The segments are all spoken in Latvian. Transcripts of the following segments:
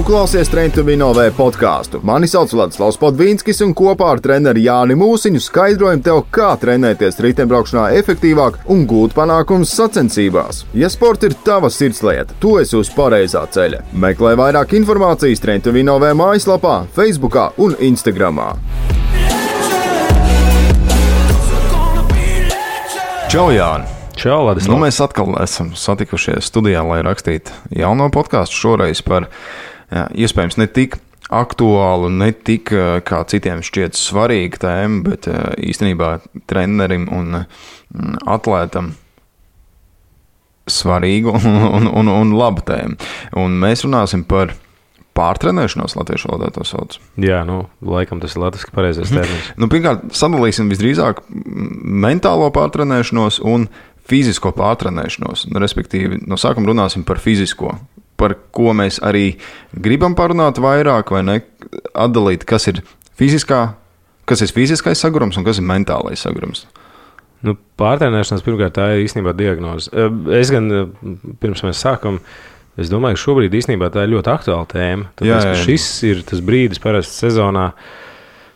klausies Train to Win OV podcastu. Mani sauc Vladislavs Podvīnskis un kopā ar treneri Jāni Mūsiņu skaidrojam tev, kā trenēties riteņbraukšanā efektīvāk un gūt panākumus sacensībās. Ja sports ir tava sirdslieta, tu esi uz pareizā ceļa. Meklē vairāk informācijas Train to Win OV mājaslapā, Facebookā un Instagramā. Čau, Jāni! Čau, Ladislav. Nu, mēs atkal esam satikušies studijā, lai rakstītu jauno podcastu šoreiz par iespējams ne tik aktuālu, ne tik kā citiem šķiet svarīgu tēmu, bet īstenībā trenerim un atlētam svarīgu un labu tēmu. Un mēs runāsim par pārtrenēšanos, latviešu valodā to sauc. Jā, laikam tas ir latviski pareizais termins. Pirmkārt, sadalīsim visdrīzāk mentālo pārtrenēšanos un fizisko pārtrenēšanos. Respektīvi, no sākuma runāsim par fizisko, par ko mēs arī gribam parunāt vairāk vai ne, atdalīt, kas ir fiziskais sagurums un kas ir mentālais sagurums. Pārtrenēšanās pirmkārt tā ir īstenībā diagnoze. Es gan, pirms mēs sākam, es domāju, ka šobrīd īstenībā tā ir ļoti aktuāla tēma. Tāpēc, ka šis ir tas brīdis parasti sezonā.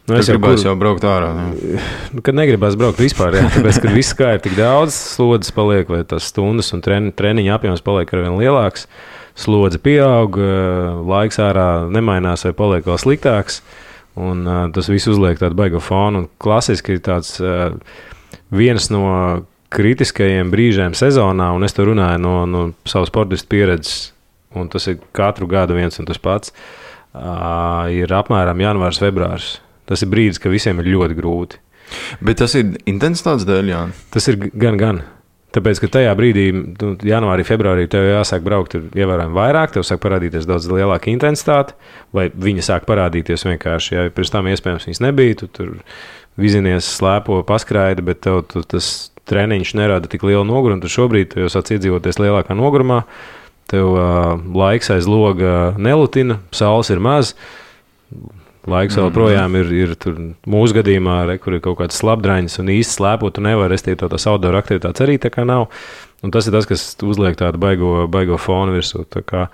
Es gribēju jau braukt ārā. Kad negribās braukt vispār, tāpēc, ka viss kā ir tik daudz, slodzes paliek, vai tas stundas un treniņa apjoms paliek arvien lielāks, slodze pieaug, laiks ārā nemainās vai paliek vēl sliktāks, un tas viss uzliek tādu baigo fonu. Un klasiski ir tāds viens no kritiskajiem brīžiem sezonā, un es to runāju no savu sportistu pieredzes, un tas ir katru gadu viens un tas pats, ir apmēram janvārs, februārs. Tas ir brīdis, ka visiem ir ļoti grūti. Bet tas ir intensitātes dēļ, jā? Tas ir gan. Tāpēc, ka tajā brīdī, janvārī, februārī, tev jāsāk braukt ievērojami vairāk, tev sāk parādīties daudz lielāka intensitāte, vai viņa sāk parādīties vienkārši, ja pirms tam iespējams viņas nebija, tu tur vizinies, slēpo, paskraidi, bet tev tas treniņš nerada tik lielu nogurumu, tu šobrīd jau sāc iedzīvoties lielākā nogurumā, tev laiks aiz loga nelutina, saules ir maz, laiks vēl projām ir tur mūsu gadījumā, kur ir kaut kāds slapdraiņas un īsti slēpot, tu nevar, restīvi tās outdoor aktivitātes arī tā kā nav. Un tas ir tas, kas uzliek tādu baigo fonu virsū. Tā kā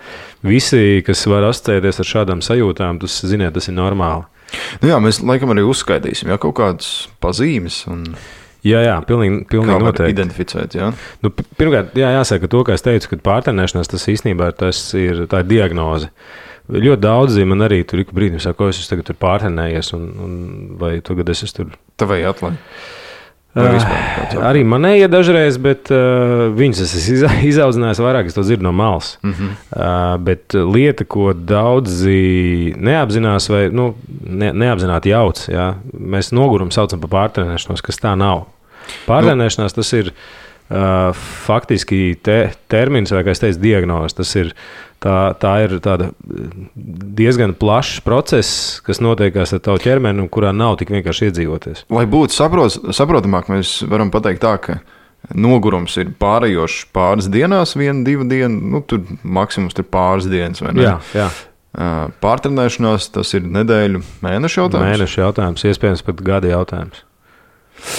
visi, kas var asociēties ar šādām sajūtām, ziniet, tas ir normāli. Jā, mēs laikam arī uzskaitīsim, kaut kādas pazīmes un... Jā, pilnīgi noteikti. Identificēt, jā? Pirmkārt, jāsaka to, kā es teicu, ka pārtrenēšanās tas īstenībā tā ir diagnoze. Ļoti daudzi man arī tur ik brīdim saka, ko es tagad tur pārtrenējies, un vai tagad es tur... Tavai atlai? Arī manēja dažreiz, bet viņus es izaudzinājis vairāk, es to dzirdu no malas. Bet lieta, ko daudzi neapzinās vai neapzināti jauc, jā, mēs nogurumu saucam par pārtrenēšanos, kas tā nav. Pārtrenēšanās tas ir faktiski termins, vai kā es teicu, diagnoze. Tas ir Tā ir tāda diezgan plašs process, kas notiekās ar tavu ķermeni, un kurā nav tik vienkārši iedzīvoties. Lai būtu saprotamāk, mēs varam pateikt tā, ka nogurums ir pārējošs pāris dienās, 1-2 dienu, tur maksimums ir pāris dienas, vai ne? Jā. Pārtrenēšanās, tas ir nedēļu, mēnešu jautājums? Mēnešu jautājums, iespējams pat gada jautājums.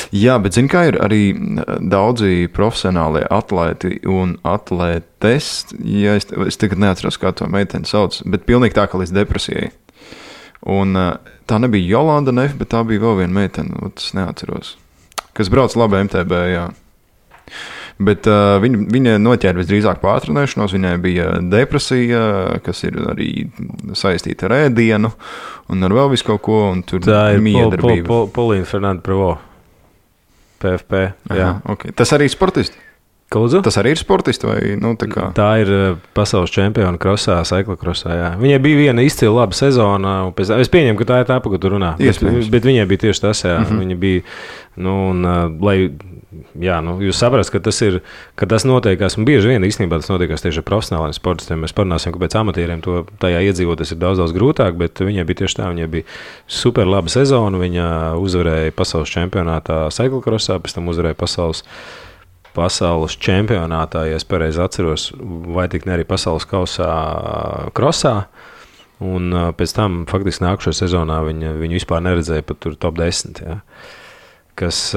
Jā, bet zini, kā ir arī daudzi profesionālie atlēti un atlētes, ja es tagad neatceros, kā to meiteni sauc, bet pilnīgi tā, ka līdz depresijai. Un tā nebija Jolanda Nef, bet tā bija vēl viena meitene, es neatceros, kas brauc labi MTB, jā. Bet viņa noķēra visdrīzāk pārtrenēšanos, viņai bija depresija, kas ir arī saistīta ar ēdienu, un ar vēl visu kaut ko, un tur miedarbība. Tā ir Polīna Fernanda Pravo. PFP, jā. Aha, okay. Tas arī ir sportisti? Lūdzu? Tas arī ir sportisti vai, tā kā? Tā ir pasaules čempiona krosā, cyclocrossā, jā. Viņai bija viena izcila laba sezona, es pieņemu, ka tā ir tā, pa ko tu runā. Bet viņai bija tieši tas, jā. Viņa bija, jūs saprast, ka tas notiekās, un bieži vien īstenībā tas notiekās tieši ar profesionāliem sportistiem. Mēs parunāsim, ka pēc amatieriem to tajā iedzīvoties ir daudz grūtāk, bet viņai bija tieši tā, viņai bija super laba sezona, viņa uzvarēja pasaules čempionātā cyclocrossā, pēc tam uzvarēja pasaules čempionātā, ja es pareizi atceros, vai tik ne arī pasaules kausā krosā, un pēc tam faktiski nākušajā sezonā viņu vispār neredzēja pat tur top 10, jā. Kas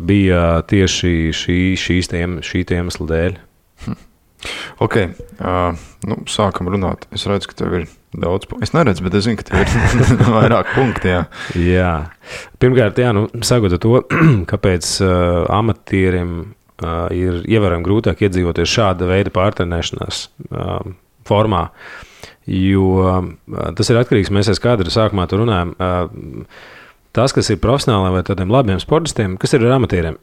bija tieši šī iemesla dēļ. Ok, sākam runāt. Es redzu, ka tev ir Daudz. Es neredzu, bet es zinu, ka tev ir vairāk punkti. Jā. Pirmkārt, sakot to, kāpēc amatierim ir ievērojami grūtāk iedzīvoties šāda veida pārtrenēšanās formā, jo tas ir atkarīgs, mēs kādreiz sākumā tur runājam, tas, kas ir profesionāli vai tādiem labiem sportistiem, kas ir ar amatieriem,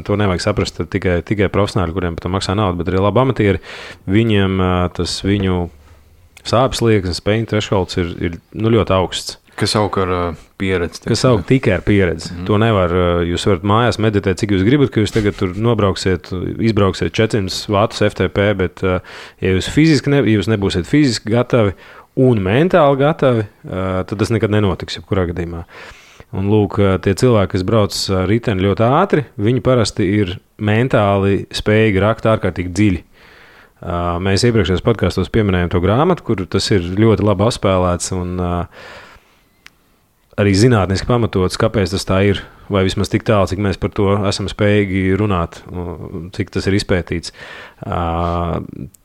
to nevajag saprast tikai profesionāli, kuriem par to maksā naudu, bet arī labi amatieri, viņiem tas viņu sāpes slieksnis, pain thresholds ir ļoti augsts. Kas aug ar pieredzi. Kas aug tikai ar pieredzi. To nevar, jūs varat mājās meditēt, cik jūs gribat, ka jūs tagad tur izbrauksiet 400 vatus FTP, bet ja jūs jūs nebūsiet fiziski gatavi un mentāli gatavi, tad tas nekad nenotiks, jebkurā gadījumā. Un lūk, tie cilvēki, kas brauc riteni ļoti ātri, viņi parasti ir mentāli spējīgi rakt ārkārtīgi dziļi. Mēs iepriekšējos podkastos pieminējām to grāmatu, kur tas ir ļoti labi apspēlēts un arī zinātniski pamatots, kāpēc tas tā ir, vai vismaz tik tālu, cik mēs par to esam spējīgi runāt, cik tas ir izpētīts.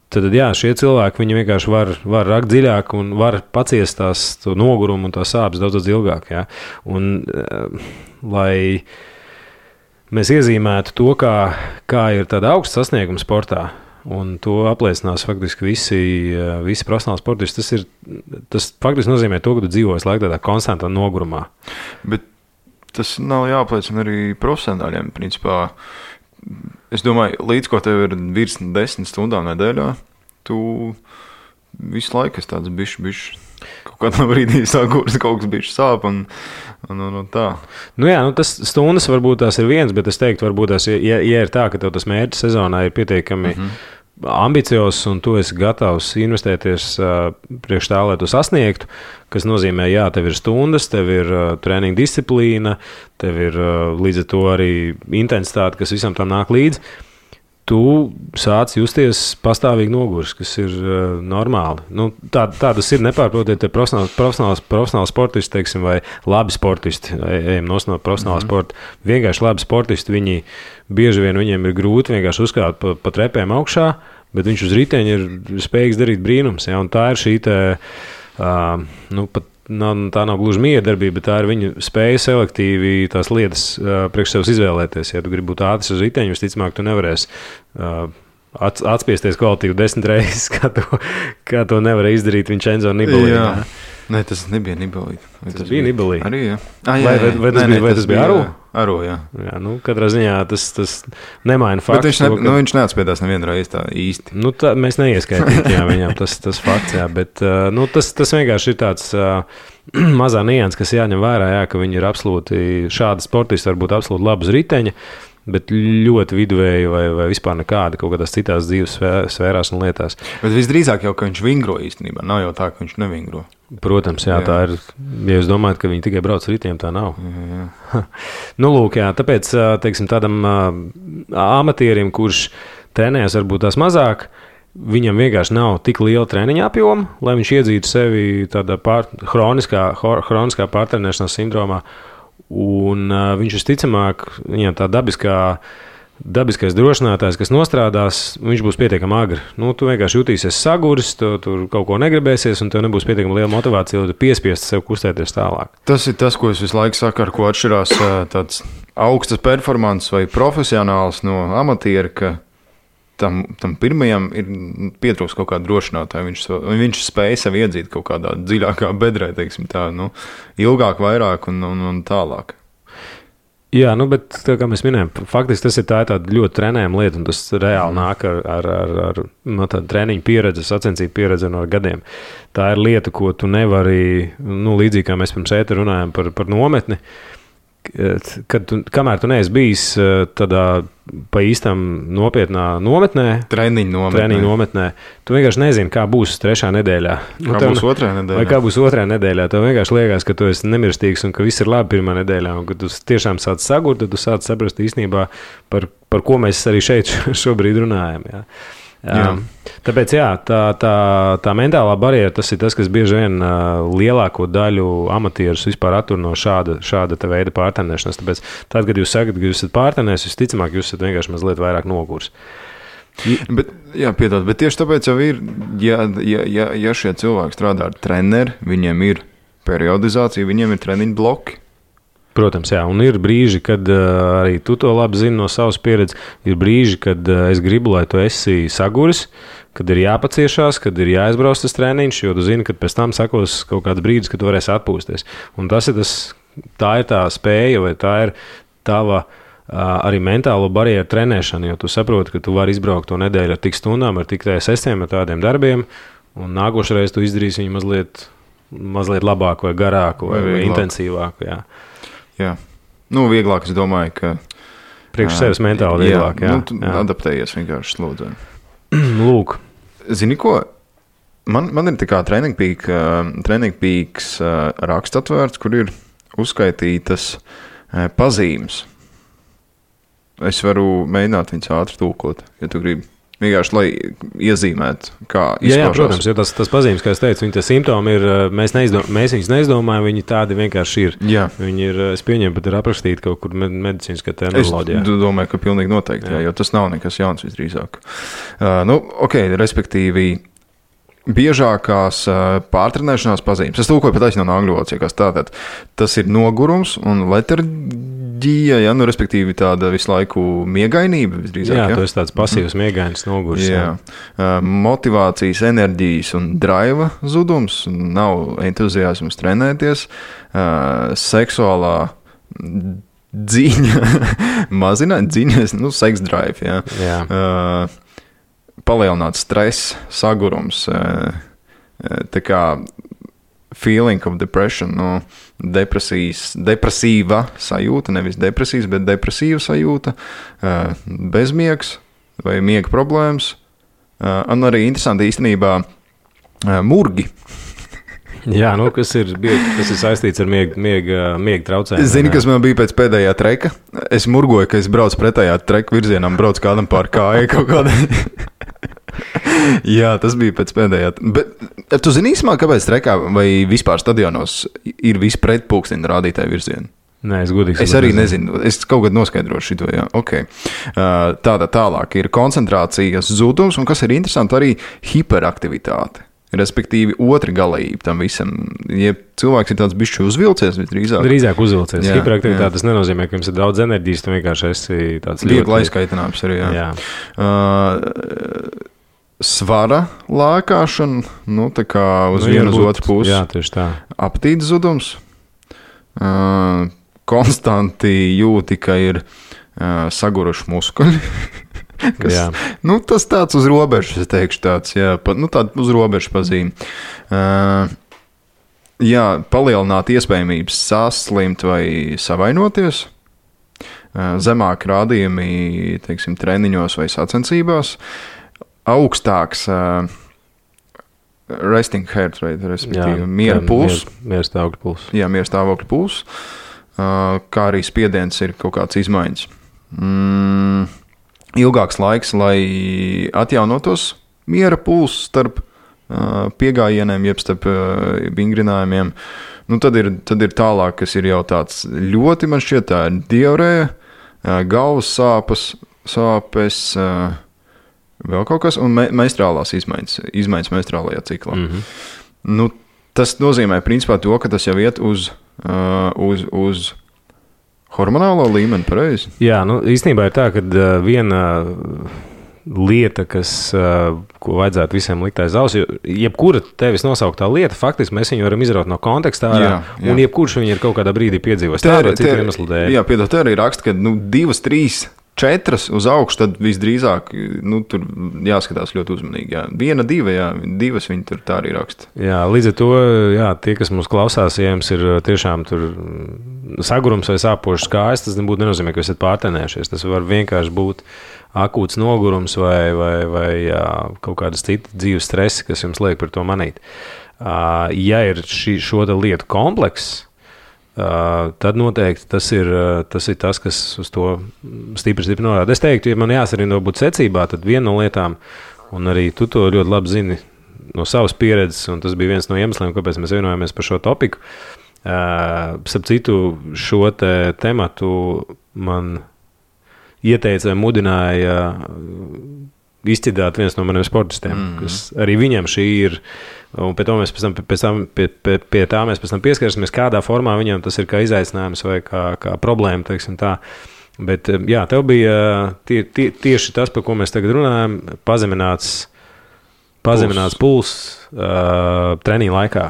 Tad, šie cilvēki, viņi vienkārši var rakt dziļāk un var paciest to nogurumu un tās sāpes daudz ilgāk. Ja? Un, lai mēs iezīmētu to, kā ir tāda augsta sasnieguma sportā, un to apliecinās faktiski visi profesionāli sportisti, tas faktiski nozīmē to, ka tu dzīvo visu laiku tādā konstantā nogurumā. Bet tas nav jāapliecina arī profesionāļiem, principā. Es domāju, līdz ko tev ir virs 10 stundām nedēļā, tu visu laiku esi tāds bišķi. Kaut kādā brīdī sākurs, kaut kas bišķi sāp un tā. Tas stundas varbūt tās ir viens, bet es teiktu, varbūt tās, ja ir tā, ka tev tas mērķis sezonā ir pietiekami ambiciozs un tu esi gatavs investēties priekš tā, lai tu sasniegtu, kas nozīmē, tev ir stundas, tev ir treniņa disciplīna, tev ir līdz ar to arī intensitāte, kas visam tam nāk līdzi. Tu sāc justies pastāvīgi nogurs, kas ir normāli. Tā tas ir nepārprotiet, profesionāli sportisti, teiksim, vai labi sportisti, ejam no profesionāla sporta. Vienkārši labi sportisti, viņi bieži vien viņiem ir grūti vienkārši uzkāpt pa trepēm augšā, bet viņš uz riteņa ir spējīgs darīt brīnums. Ja? Un tā ir šī tā nav gluži miedarbība, bet tā ir viņa spēja selektīvi tās lietas priekš sevis izvēlēties. Ja tu gribi būt ātrs uz riteņu, visticamāk, tu nevarēsi atspiesties kvalitīvi 10 reizes, kā to nevarēja izdarīt Vincenzo Nibali. Nē, tas nebija Nibali. Tas bija Nibali. Arī, jā. Vai tas bija Aru? Aru, jā. Katrā ziņā tas nemaina faktu. Bet viņš neatspiedās nevienu reizi tā īsti. Mēs neieskaitītu viņam tas fakts, bet tas vienkārši ir tāds mazā nianses, kas jāņem vērā, ka viņi ir absolūti šādi sportisti, varbūt absolūti labi uz riteņa, bet ļoti viduvēji vai vispār nekādi kaut kādās citās dzīves sfērās un lietās. Bet visdrīzāk jau, ka viņš vingro īstenībā, nav jau tā, ka viņš nevingro. Protams, jā. Tā ir, ja jūs domājat, ka viņi tikai brauc ar ritiem, tā nav. Jā. Lūk, tāpēc, teiksim, tādam amatierim, kurš trenējas varbūt tās mazāk, viņam vienkārši nav tik liela treniņa apjoma, lai viņš iedzītu sevi tādā hroniskā pārtrenēšanās sindromā. Un viņš visticamāk, viņam tā dabiskais drošinātājs, kas nostrādās, viņš būs pietiekami agri. Tu vienkārši jutīsies saguris, tu tur kaut ko negribēsies, un tev nebūs pietiekami liela motivācija, lai tu piespiestu sev kustēties tālāk. Tas ir tas, ko es visu laiku saku, ar ko atšķirās tāds augstas performances vai profesionāls no amatiera, ka tam pirmajam ir pietrūks kaut kāda drošinātāja. Viņš spēja sev iedzīt kaut kādā dziļākā bedrē, teiksim tā, ilgāk, vairāk un tālāk. Jā, bet tā kā mēs minējām, faktiski tas ir tāda ļoti trenējama lieta, un tas reāli nāk ar tādu treniņu pieredzi, sacensību pieredzi no gadiem. Tā ir lieta, ko tu nevari, līdzīgi kā mēs pirms ēta runājam par nometni, kamēr tu neesi bijis tādā pa īstam nopietnā nometnē, treniņu nometnē, tu vienkārši nezini, kā būs 3. nedēļā. Būs 2. nedēļā. Vai kā būs 2. nedēļā. Tev vienkārši liekas, ka tu esi nemirstīgs un ka viss ir labi 1. nedēļā. Un kad tu tiešām sāc sagurt, tad tu sāc saprast īstenībā, par ko mēs arī šeit šobrīd runājam. Jā. Tāpēc tā mentālā barjera, tas ir tas, kas bieži vien lielāko daļu amatierus vispār attur no šāda veida pārtrenēšanas. Tāpēc tad, kad jūs sakat, ka jūs esat pārtrenējis, visticamāk, jūs esat vienkārši mazliet vairāk nogurs. Bet, piedod, bet tieši tāpēc jau ir, ja šie cilvēki strādā ar treneri, viņiem ir periodizācija, viņiem ir treniņu bloki. Protams, jā, un ir brīži, kad arī tu to labi zini no savas pieredzes, ir brīži, kad es gribu, lai tu esi saguris, kad ir jāpaciešās, kad ir jāizbrauc tas treniņš, jo tu zini, ka pēc tam sekos kaut kāds brīdis, kad tu varēsi atpūsties. Un tā ir tā spēja, vai tā ir tava arī mentālo barjeru trenēšana, jo tu saproti, ka tu vari izbraukt to nedēļu ar tik stundām, ar tik sestiem, ar tādiem darbiem, un nākošreiz tu izdarīsi viņu mazliet labāku vai garāku vai intensīvāku. Jā. Vieglāk, es domāju, ka priekš sevis mentāli vieglāk. Tu adaptējies vienkārši slūdzē. Lūk. Zini ko? Man ir tā kā Training Peaks raksts atvērts, kur ir uzskaitītas pazīmes. Es varu mēģināt viņus ātri tulkot, ja tu gribi. Vienkārši, lai iezīmētu, kā izpaužās. Jā, protams, jo tas pazīmes, kā es teicu, viņi tie simptomi ir, mēs viņus neizdomājam, viņi tādi vienkārši ir. Jā. Viņi ir, es pieņemu, pat ir aprakstīti kaut kur medicīniskā terminoloģijā. Es domāju, ka pilnīgi noteikti, jo tas nav nekas jauns visdrīzāk. Respektīvi, biežākās pārtrenēšanās pazīmes. Es tulkoju pat no angļu valodas, tātad tas ir nogurums un letarģija, respektīvi tāda visu laiku miegainība visdrīzāk. Jā, tas ir tāds pasīvs miegainis nogurs. Jā. Motivācijas, enerģijas un draiva zudums, nav entuziasms trenēties, seksuālā dziņa mazināt, sex drive, jā. Palielināts stress, sagurums, tā kā feeling of depression, depresīva sajūta, nevis depresijas, bet depresīva sajūta, bezmiegs vai miega problēmas, un arī interesanti īstenībā murgi. Jā, kas ir saistīts ar miega traucējumiem. Zini, kas man bija pēc pēdējā treka? Es murgoju, ka es braucu pretējā treka virzienā, braucu kādam pār kāju kaut kādā. Jā, tas bija pēc pēdējā. Bet tu zini īsumā, kāpēc trekā vai vispār stadionos ir visi pretpulksteņu rādītāji virzieni? Nē, es arī nezinu. Es kaut kad noskaidrošu šito, jā. Okay. Tālāk ir koncentrācijas zudums, un kas ir interesanti, arī hiperaktivitāte. Respektīvi, otra galība tam visam. Ja cilvēks ir tāds bišķi uzvilcies, visdrīzāk. Drīzāk uzvilcies. Hiperaktivitāte tas nenozīmē, ka jums ir daudz enerģijas, tu vienkārši esi tāds viegli aizkaitināms arī, jā. Svara lēkāšana, tā kā uz vienu uz otru pusi. Jā, tieši tā. Apetītes zudums. Konstanti jūti, ka ir saguruši muskuļi. Tas tāds uz robežas, es teikšu tāds, tāda uz robežas pazīme. Palielināt iespējamības saslimt vai savainoties. Zemāk rādījumi, teiksim, treniņos vai sacensībās. Augstāks resting heart rate, respektīvi miera puls. Miera stāvokļa puls. Jā, miera stāvokļa puls. Kā arī spiediens ir kaut kāds izmaiņas. Ilgāks laiks, lai atjaunotos miera puls starp piegājieniem, jeb starp vingrinājumiem. Tad ir tālāk, kas ir jau tāds ļoti, man šķiet, tā ir diarēja, galvas sāpes, vēl kaut kas, un menstruālās izmaiņas menstruālajā ciklā. Tas nozīmē principā to, ka tas jau iet uz hormonālo līmeni, pareizi? Jā, īstenībā ir tā, ka viena lieta, ko vajadzētu visiem likt aiz auss, jebkura tevis nosauktā lieta, faktiski mēs viņu varam izraut no kontekstā ārā, un jebkurš viņu ir kaut kādā brīdī piedzīvojis. Jā, piedod, te arī raksta, ka 2, 3, 4 uz augšu, tad visdrīzāk tur jāskatās ļoti uzmanīgi. Jā. 1, 2, 2 viņi tur tā arī raksta. Jā, līdz ar to, tie, kas mūs klausās, ja jums ir tiešām tur sagurums vai sāpošas kājas, tas nebūtu nenozīmē, ka esat pārtenējušies. Tas var vienkārši būt akūts nogurums vai kaut kādas citas dzīves stresi, kas jums liek par to manīt. Ja ir šo lietu komplekss, tad noteikti tas ir tas, kas uz to stipri norāda. Es teiktu, ja man jāsarindo būt secībā, tad viena no lietām, un arī tu to ļoti labi zini no savas pieredzes, un tas bija viens no iemesliem, kāpēc mēs vienojāmies par šo topiku. Starp citu, šo tematu man ieteica vai mudināja izcidāt viens no maniem sportistiem, kas arī viņam šī ir. Un pie tā mēs pēc tam pieskarsimies, kādā formā viņam tas ir kā izaicinājums vai kā problēma, teiksim tā. Bet, jā, tev bija tieši tas, par ko mēs tagad runājam, pazemināts puls treniņa laikā.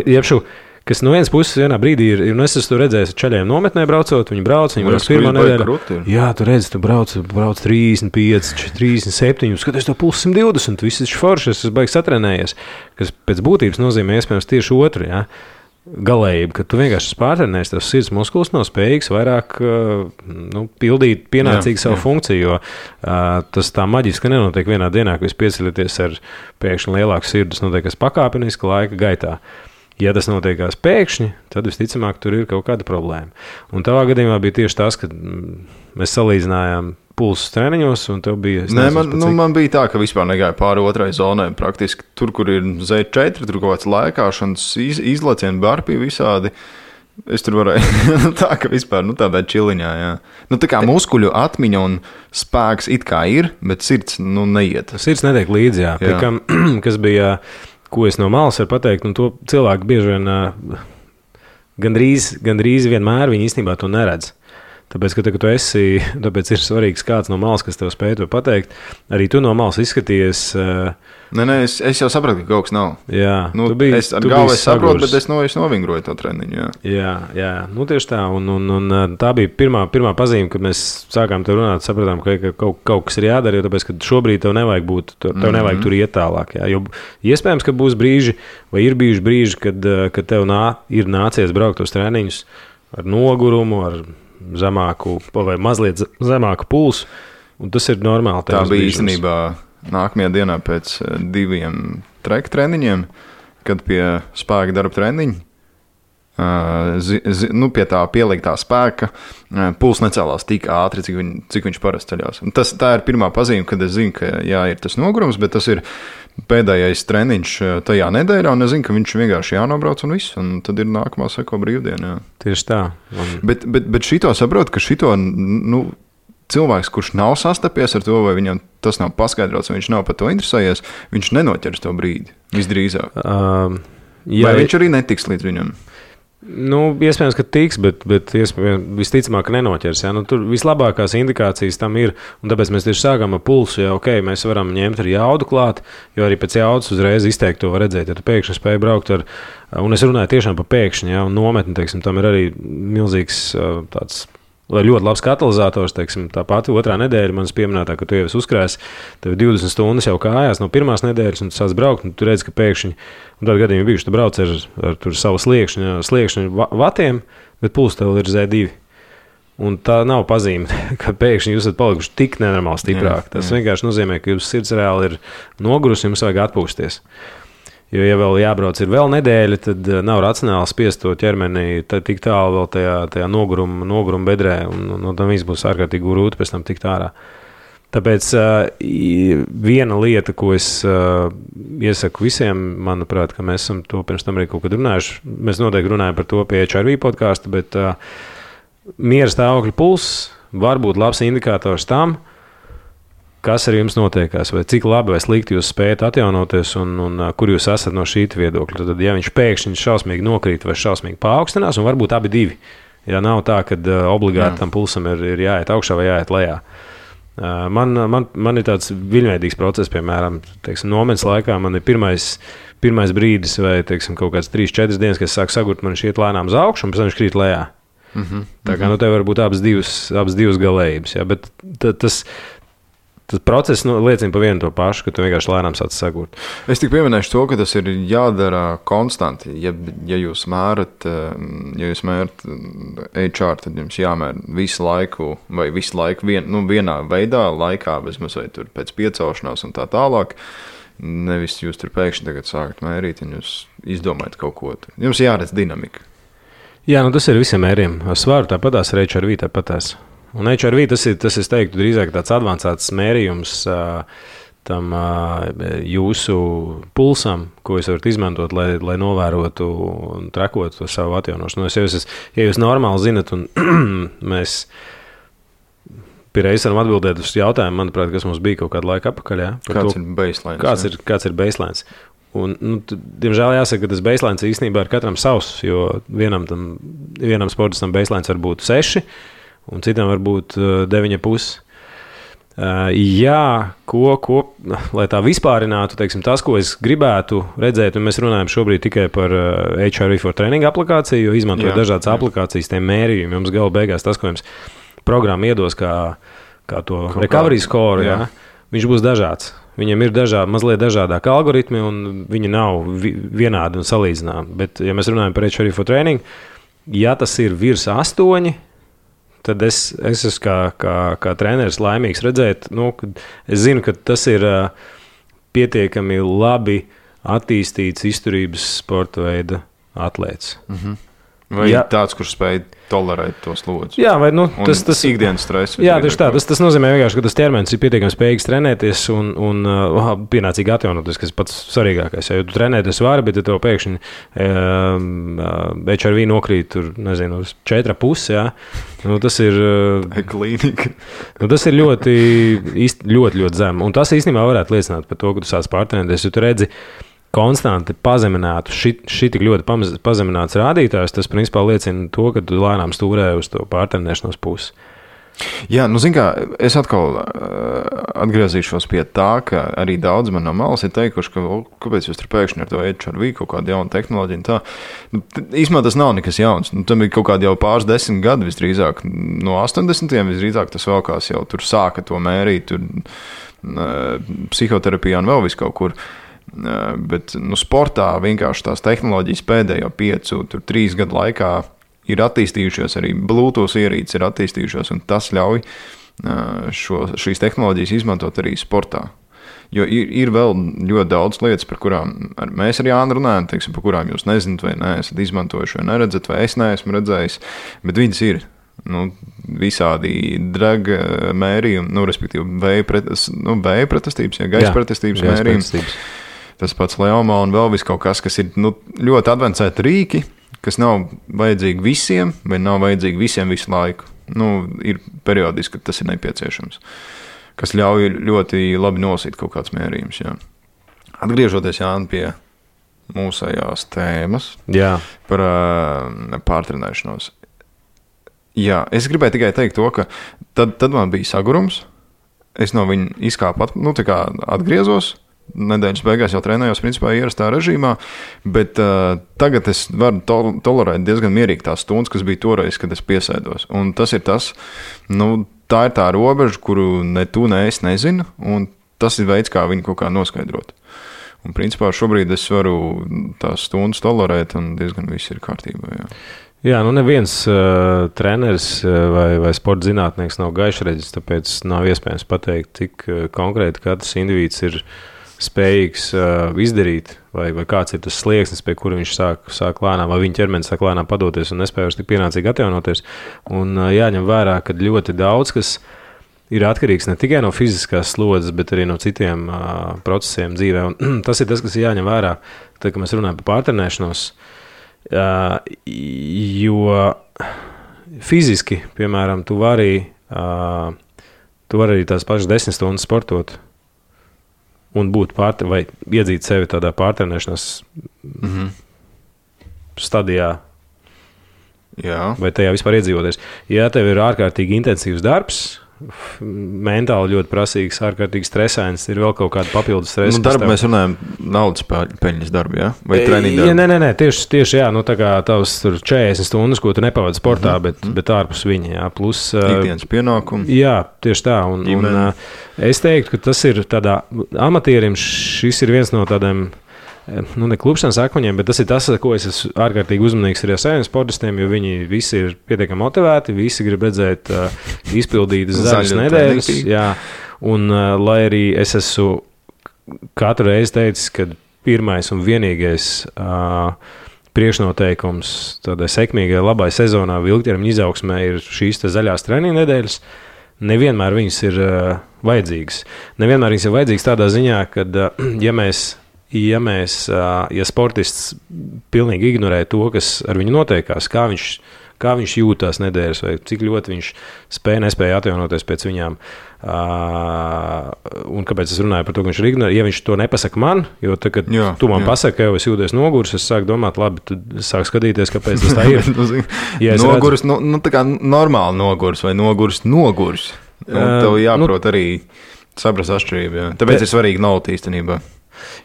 Jebšu, kas no vienas puses vienā brīdī ir, un es esmu redzējis čaļiem nometnē braucot, viņi brauc pirmā nedēļa. Jā, tu redzi, tu brauc 35, 37, skaties to pulsu 120, viss ir forši, es baigi satrenējies, kas pēc būtības nozīmē iespējams tieši otru, jā. Galējība, ka tu vienkārši pārtrenējies, tavs sirds muskulis nav spējīgs vairāk pildīt pienācīgi savu funkciju, jo tas tā maģiski nenotiek vienā dienā, ka jūs pieceļaties ar pēkšņi lielāku sirdi, tas notiek pakāpeniski laika gaitā. Ja tas notiekās pēkšņi, tad visticamāk tur ir kaut kāda problēma. Un tavā gadījumā bija tieši tas, ka mēs salīdzinājām pulsus treniņos, un tev bija... Man bija tā, ka vispār negāja pāri otrai zonai. Praktiski tur, kur ir Z4, tur kaut kāds laikāšanas izlecieni, barpī visādi. Es tur varēju tā, ka vispār tādā čiliņā, jā. Tā kā muskuļu atmiņa un spēks it kā ir, bet sirds neiet. Sirds netiek līdzi, jā. Pie kam, kas bija, ko es no malas varu pateikt, un to cilvēki bieži vien gandrīz vienmēr viņi īstenībā to neredz. Tāpēc, ka tu esi, tāpēc ir svarīgs kāds no malas, kas tev spēj to pateikt. Arī tu no malas izskaties. Nē, es jau sapratu, ka kaut kas nav. Jā, es ar galvu saprotu, bet es novingroju to treniņu. Jā, tieši tā. Un tā bija pirmā pazīme, kad mēs sākām te runāt, sapratām, ka kaut kas ir jādara, jo tāpēc, ka šobrīd tev nevajag būt, nevajag tur iet tālāk. Jā. Jo iespējams, ka būs brīži, vai ir bijuši brīži, kad tev ir nācies braukt uz treniņus ar nogurumu, ar zemāku vai mazliet zemāku pulsu, un tas ir normāli. Tā bija īstenībā nākamajā dienā pēc 2 treka treniņiem, kad pie spēka darba treniņa, pie tā pieliktā spēka, puls necēlās tik ātri, cik viņš parasti ceļās. Un tā ir pirmā pazīme, kad es zinu, ka jā, ir tas nogurums, bet tas ir pēdējais treniņš tajā nedēļā, un es zinu, ka viņš vienkārši jānobrauc un viss, un tad ir nākamā seko brīvdiena. Tieši tā. Bet šito saprotu, ka šito cilvēks, kurš nav sastapies ar to, vai viņam tas nav paskaidrots, vai viņš nav par to interesējies, viņš nenoķers to brīdi, visdrīzāk. Vai viņš arī netiks līdz viņam? Iespējams, ka tiks, bet visticamāk nenoķers. Ja? Tur vislabākās indikācijas tam ir, un tāpēc mēs tieši sākām ar pulsu, ja mēs varam ņemt arī jaudu klāt, jo arī pēc jaudas uzreiz izteikt to var redzēt, ja tu pēkšņi spēj braukt ar, un es runāju tiešām par pēkšņi, ja? Un nometni, teiksim, tam ir arī milzīgs tāds, ļoti labs katalizators, teiksim, tā pati otrā nedēļa manas pieminētā, ka tu jau esi uzkrājis, tev 20 stundas jau kājās no pirmās nedēļas, un tu sāc braukt, un tu redzi, ka pēkšņi, un tādu gadījumu bijuši, tu brauc ar savu sliekšņu vatiem, bet puls tev ir Z2. Un tā nav pazīme, ka pēkšņi jūs esat palikuši tik nenormāli stiprāk. Tas vienkārši nozīmē, ka jūsu sirds reāli ir nogurusi, jums vajag atpūsties. Jo, ja vēl jābrauc ir vēl nedēļa, tad nav racionāli spiest to ķermeni tik tālu vēl tajā noguruma bedrē, un tam viss būs ārkārtīgi grūti pēc tam tikt ārā. Tāpēc viena lieta, ko es iesaku visiem, manuprāt, ka mēs esam to pirms tam arī kaut kad runājuši, mēs noteikti runājam par to pie HRV podcastu, bet miera stāvokļa pulss var būt labs indikators tam, kas ar jums notiekās, vai cik labi vai slikti jūs spējat atjaunoties un kur jūs esat no šī viedokļa. Tad, ja viņš pēkšņi šausmīgi nokrīt vai šausmīgi paaugstinās, un varbūt abi divi, ja nav tā, ka obligāti tam pulsam ir jāiet augšā vai jāiet lejā. Man ir tāds viļņveidīgs process, piemēram, teiksim, nometnes laikā man ir pirmais brīdis vai, teiksim, kaut kāds 3-4 dienas, kad es sāku sagurt, man šķiet lēnām uz augšu, un pēc tam viņš krīt lejā. Tā kā, tev var būt abas divas galējības, ja, bet tas process liecina par vienu to pašu, ka tu vienkārši lēnām sāc sagurt. Es tik pieminēšu to, ka tas ir jādara konstanti. Ja jūs mērat HR, tad jums jāmēra visu laiku vienā veidā, laikā, bezmaz vai tur pēc piecaušanās un tā tālāk. Nevis jūs tur pēkšņi tagad sākat mērīt un jūs izdomājat kaut ko. Jums jāredz dinamika. Jā, tas ir visiem mēriem. Svaru tāpatās, ar HRV tāpatās. Un HRV tas es teiktu, drīzāk tāds advancēts mērījums tam jūsu pulsam, ko jūs varat izmantot, lai novērotu un trekotu savu atjaunošanos. Ja jūs normāli zinat, un mēs Pierreiz varam atbildēt uz jautājumu, manuprāt, kas mums bija kaut kādu laiku atpakaļ. Ja? Kāds ir baselines? Un, diemžēl jāsaka, ka tas baselines īstenībā ir katram savs, jo vienam sportistam baselines var būt 6, un citam var būt 9,5. Jā, lai tā vispārinātu, teiksim, tas, ko es gribētu redzēt, un mēs runājam šobrīd tikai par HRV for Training aplikāciju, jo izmantojot dažādas aplikācijas, tiem mērījumiem, jums gala beigās tas, ko jums programma iedos kā to recovery score, viņš būs dažāds. Viņam ir mazliet dažādāki algoritmi, un viņi nav vienādi un salīdzināmi. Bet, ja mēs runājam par HRV for Training, ja tas ir virs 8, tad es esmu kā treneris laimīgs redzēt, es zinu, ka tas ir pietiekami labi attīstīts izturības sporta veida atlēts. Mhm. Vai tāds, kurš spēj tolerēt to slodzi? Jā, vai tas ikdienas stress. Jā, tieši tā. Tas nozīmē vienkārši, ka tas ķermenis ir pietiekami spējīgs trenēties un pienācīgi atjaunoties, kas ir pats svarīgākais. Ja tu trenēties vari, bet ja tev pēkšņi HRV nokrīt tur, nezinu, uz 4,5, tas ir klīnika. Tas ir ļoti zem. Un tas īstenībā varētu liecināt par to, ka tu sāc pārtrenēties, jo tu redzi konstanti pazeminātu, tik ļoti pazemināts rādītājs, tas principā liecina to, ka tu lēnām stūrē uz to pārtrenēšanos pusi. Jā, zin kā, es atkal atgriezīšos pie tā, ka arī daudz man no malas ir teikuši, ka kāpēc jūs tur pēkšņi ar to HRV kaut kādu jaunu tehnoloģiju un tā. Īstumā tas nav nekas jauns. Tam ir kaut kādi jau pāris 10 gadi visdrīzāk. No 80. visdrīzāk tas vēlkās jau tur sāka to mērīt, tur psihoterapijā un vēl vis kaut kur. Bet sportā vienkārši tās tehnoloģijas pēdējo 3 gadu laikā ir attīstījušās, arī Bluetooth ierīces ir attīstījušās, un tas ļauj šīs tehnoloģijas izmantot arī sportā. Jo ir vēl ļoti daudz lietas, par kurām mēs ar Jānu runājam, teiksim, par kurām jūs nezināt, vai neesat izmantojuši, vai neredzat, vai es neesmu redzējis, bet viņas ir. Visādi draga mērījumi, respektīvi vēja pretestības, gaisa pretestības mērījumi. Tas pats Leomā un vēl vis kaut kas ir ļoti advancēti rīki, kas nav vajadzīgi visiem, vai nav vajadzīgi visiem visu laiku. Ir periodiski, kad tas ir nepieciešams, kas ļauj ļoti labi nosīt kaut kāds mērījums. Jā. Atgriežoties, Jāni, pie mūsējās tēmas par pārtrenēšanos. Jā, es gribēju tikai teikt to, ka tad man bija sagurums, es no viņa izkāpu, atgriezos, nedēļas beigās jau trenējos principā ierastā režīmā, bet tagad es varu tolerēt diezgan mierīgi tās stundas, kas bija toreiz, kad es piesēdos. Un tas ir tas, tā ir tā robeža, kuru ne tu, ne es nezinu, un tas ir veids, kā viņu kaut kā noskaidrot. Un principā šobrīd es varu tās stundas tolerēt, un diezgan viss ir kārtībā, Jā, neviens treneris vai sporta zinātnieks nav gaišreģis, tāpēc nav iespējams pateikt, cik konkrēti katrs indivīds ir spējīgs izdarīt, vai kāds ir tas slieksnis, pie kura viņš sāk lēnām, vai viņa ķermenis sāk lēnām padoties un nespēj tik pienācīgi atjaunoties. Un jāņem vērā, ka ļoti daudz, kas ir atkarīgs ne tikai no fiziskās slodzes, bet arī no citiem procesiem dzīvē. Un tas ir tas, kas ir jāņem vērā, tad, kad mēs runājam par pārtrenēšanos, jo fiziski, piemēram, tu vari arī tās pašas 10 stundas sportot un būt vai iedzīt sevi tādā pārtrenēšanās stadijā. Jā. Vai tajā vispār iedzīvoties. Ja tev ir ārkārtīgi intensīvs darbs, mentāli ļoti prasīgs, ārkārtīgi stresains, ir vēl kaut kāda papildus stresa. Darba mēs runājam naudas peļņas darbu, jā? Vai treniņu darbu? Nē, tieši jā, tā kā tavs tur 40 stundas, ko tu nepavadi sportā, bet ārpus viņa, jā, plus... Ikdienas pienākumi. Jā, tieši tā, un es teiktu, ka tas ir tādā amatierim, šis ir viens no tādiem, ne klupšanas akmeņiem, bet tas ir tas, ko es esmu ārkārtīgi uzmanīgs arī ar saviem sportistiem, jo viņi visi ir pietiekami motivēti, visi grib redzēt izpildītas zaļas nedēļas. Jā, un lai arī es esmu katru reizi teicis, ka pirmais un vienīgais priekšnoteikums tādai sekmīgai, labai sezonā ilgtermiņa izaugsmē ir šīs zaļās treniņu nedēļas, nevienmēr viņas ir vajadzīgas. Nevienmēr viņas ir vajadzīgas tādā ziņā, ka ja sportists pilnīgi ignorē to, kas ar viņu notiekās, kā kā viņš jūtās nedēļas, vai cik ļoti viņš nespēja atjaunoties pēc viņām. Un kāpēc es runāju par to, ka viņš ir ignorējis? Ja viņš to nepasaka man, jo tad, kad tu man pasaki, ka jau es jūties nogurs, es sāku domāt, labi, tad sāku skatīties, kāpēc tas tā ir. Ja nogurs, tā kā normāli nogurs vai nogurs. Tev jāprot arī saprast atšķirību. Jā. Tāpēc ir svarīgi nauda īstenībā.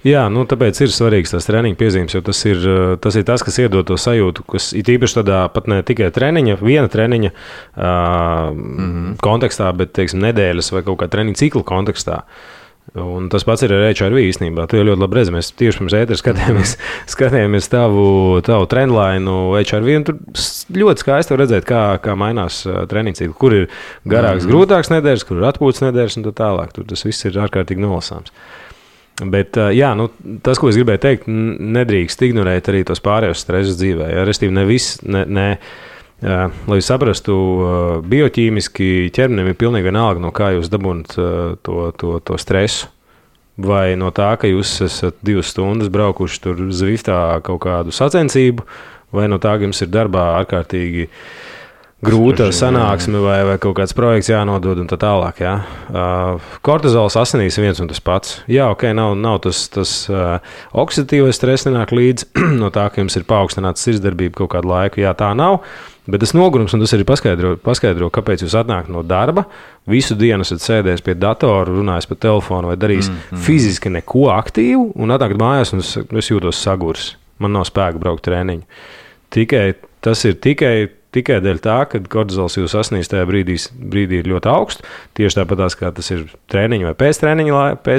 Jā, tāpēc ir svarīgs tās treniņa piezīmes, jo tas ir tas, kas iedod to sajūtu, kas ir īpaši tādā pat ne tikai viena treniņa kontekstā, bet, teiksim, nedēļas vai kaut kā treniņa cikla kontekstā. Un tas pats ir ar HRV īstenībā. Tu jau ļoti labi redzi, mēs tieši pirms ētera skatījāmies tavu trendlainu HRV, un tur ļoti skaisti var redzēt, kā mainās treniņa cikli, kur ir garāks, grūtāks nedēļas, kur ir atpūtas nedēļas un tā tālāk. Tur tas viss ir ārkārtīgi nolasāms. Bet, tas, ko es gribēju teikt, nedrīkst ignorēt arī tos pārējos stresus dzīvē. Ja? Restīvi, lai jūs saprastu, bioķīmiski ķermenim ir pilnīgi vienalga, no kā jūs dabūnat to stresu. Vai no tā, ka jūs esat 2 stundas braukuši tur Zviftā kaut kādu sacensību, vai no tā, ka jums ir darbā ārkārtīgi grūta sanāksme vai kaut kāds projekts jānodod un tā tālāk. Jā. Kortizols asinīs viens un tas pats. Jā, ok, nav tas oksidatīvais stress nenāk līdz no tā, ka jums ir paaugstināta sirdsdarbība kaut kādu laiku. Jā, tā nav, bet tas nogurums, un tas arī paskaidro, kāpēc jūs atnākat no darba, visu dienu esat sēdējis pie datora, runājis pa telefonu vai darījis fiziski neko aktīvu, un atnākat mājās, un es jūtos sagurs. Man nav spēka braukt treniņu. Tas ir tikai dēļ tā, ka kortizols jūs asinīs tajā brīdī ir ļoti augsts, tieši tāpatās, kā tas ir treniņa vai pēc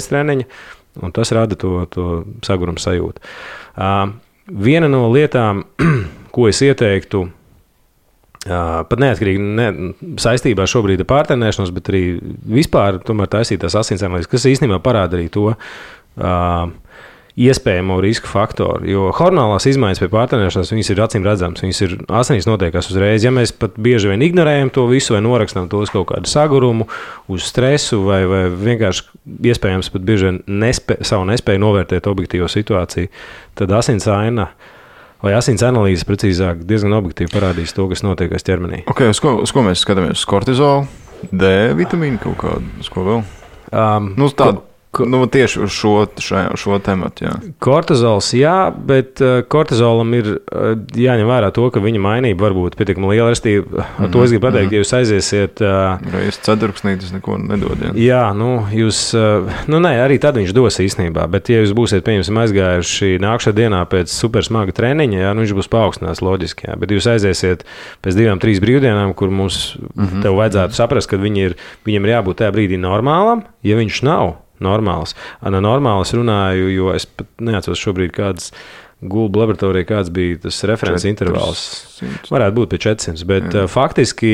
treniņa, un tas rada to saguruma sajūtu. Viena no lietām, ko es ieteiktu, pat neatkarīgi saistībā šobrīd ar pārtrenēšanos, bet arī vispār tomēr taisīt tās asinsanalīzes, kas īstenībā parāda arī to iespējamo risku faktoru, jo hormonālās izmaiņas pie pārtrenēšanās, viņas ir acīm redzamas, viņas ir asinīs notiekās uzreiz. Ja mēs pat bieži vien ignorējam to visu vai norakstam to uz kaut kādu sagurumu, uz stresu vai vienkārši iespējams pat bieži vien savu nespēju novērtēt objektīvo situāciju, tad asinsaina vai asins analīze precīzāk diezgan objektīvi parādīs to, kas notiek ķermenī. Ok, uz ko mēs skatāmies? Uz kortizolu, D vitamīnu kaut kādu, uz ko vēl? Tādu. Tieši uz šo tematu, jā. Kortizols, jā, bet kortizolam ir jāņem vērā to, ka viņa mainība var būt pietiekami liela. Ar to es gribu pateikt, ja jūs aiziesiet... Reiz ceturksnītis neko nedod, jā. Jā, jūs... arī tad viņš dos īstenībā, bet ja jūs būsiet, pieņemsim, aizgājuši nākšā dienā pēc supersmaga treniņa, jā, viņš būs paaugstināts loģiski, jā. Bet jūs aiziesiet pēc 2-3 brīvdienām, kur mums tev vajadzētu saprast, ka viņam ir jābūt tajā brīdī normālam, ja viņš nav normāls. Normāls runāju, jo es pat neatceros šobrīd kādas gulbu laboratorija, kāds bija tas references intervāls. Varētu būt pie 400, bet faktiski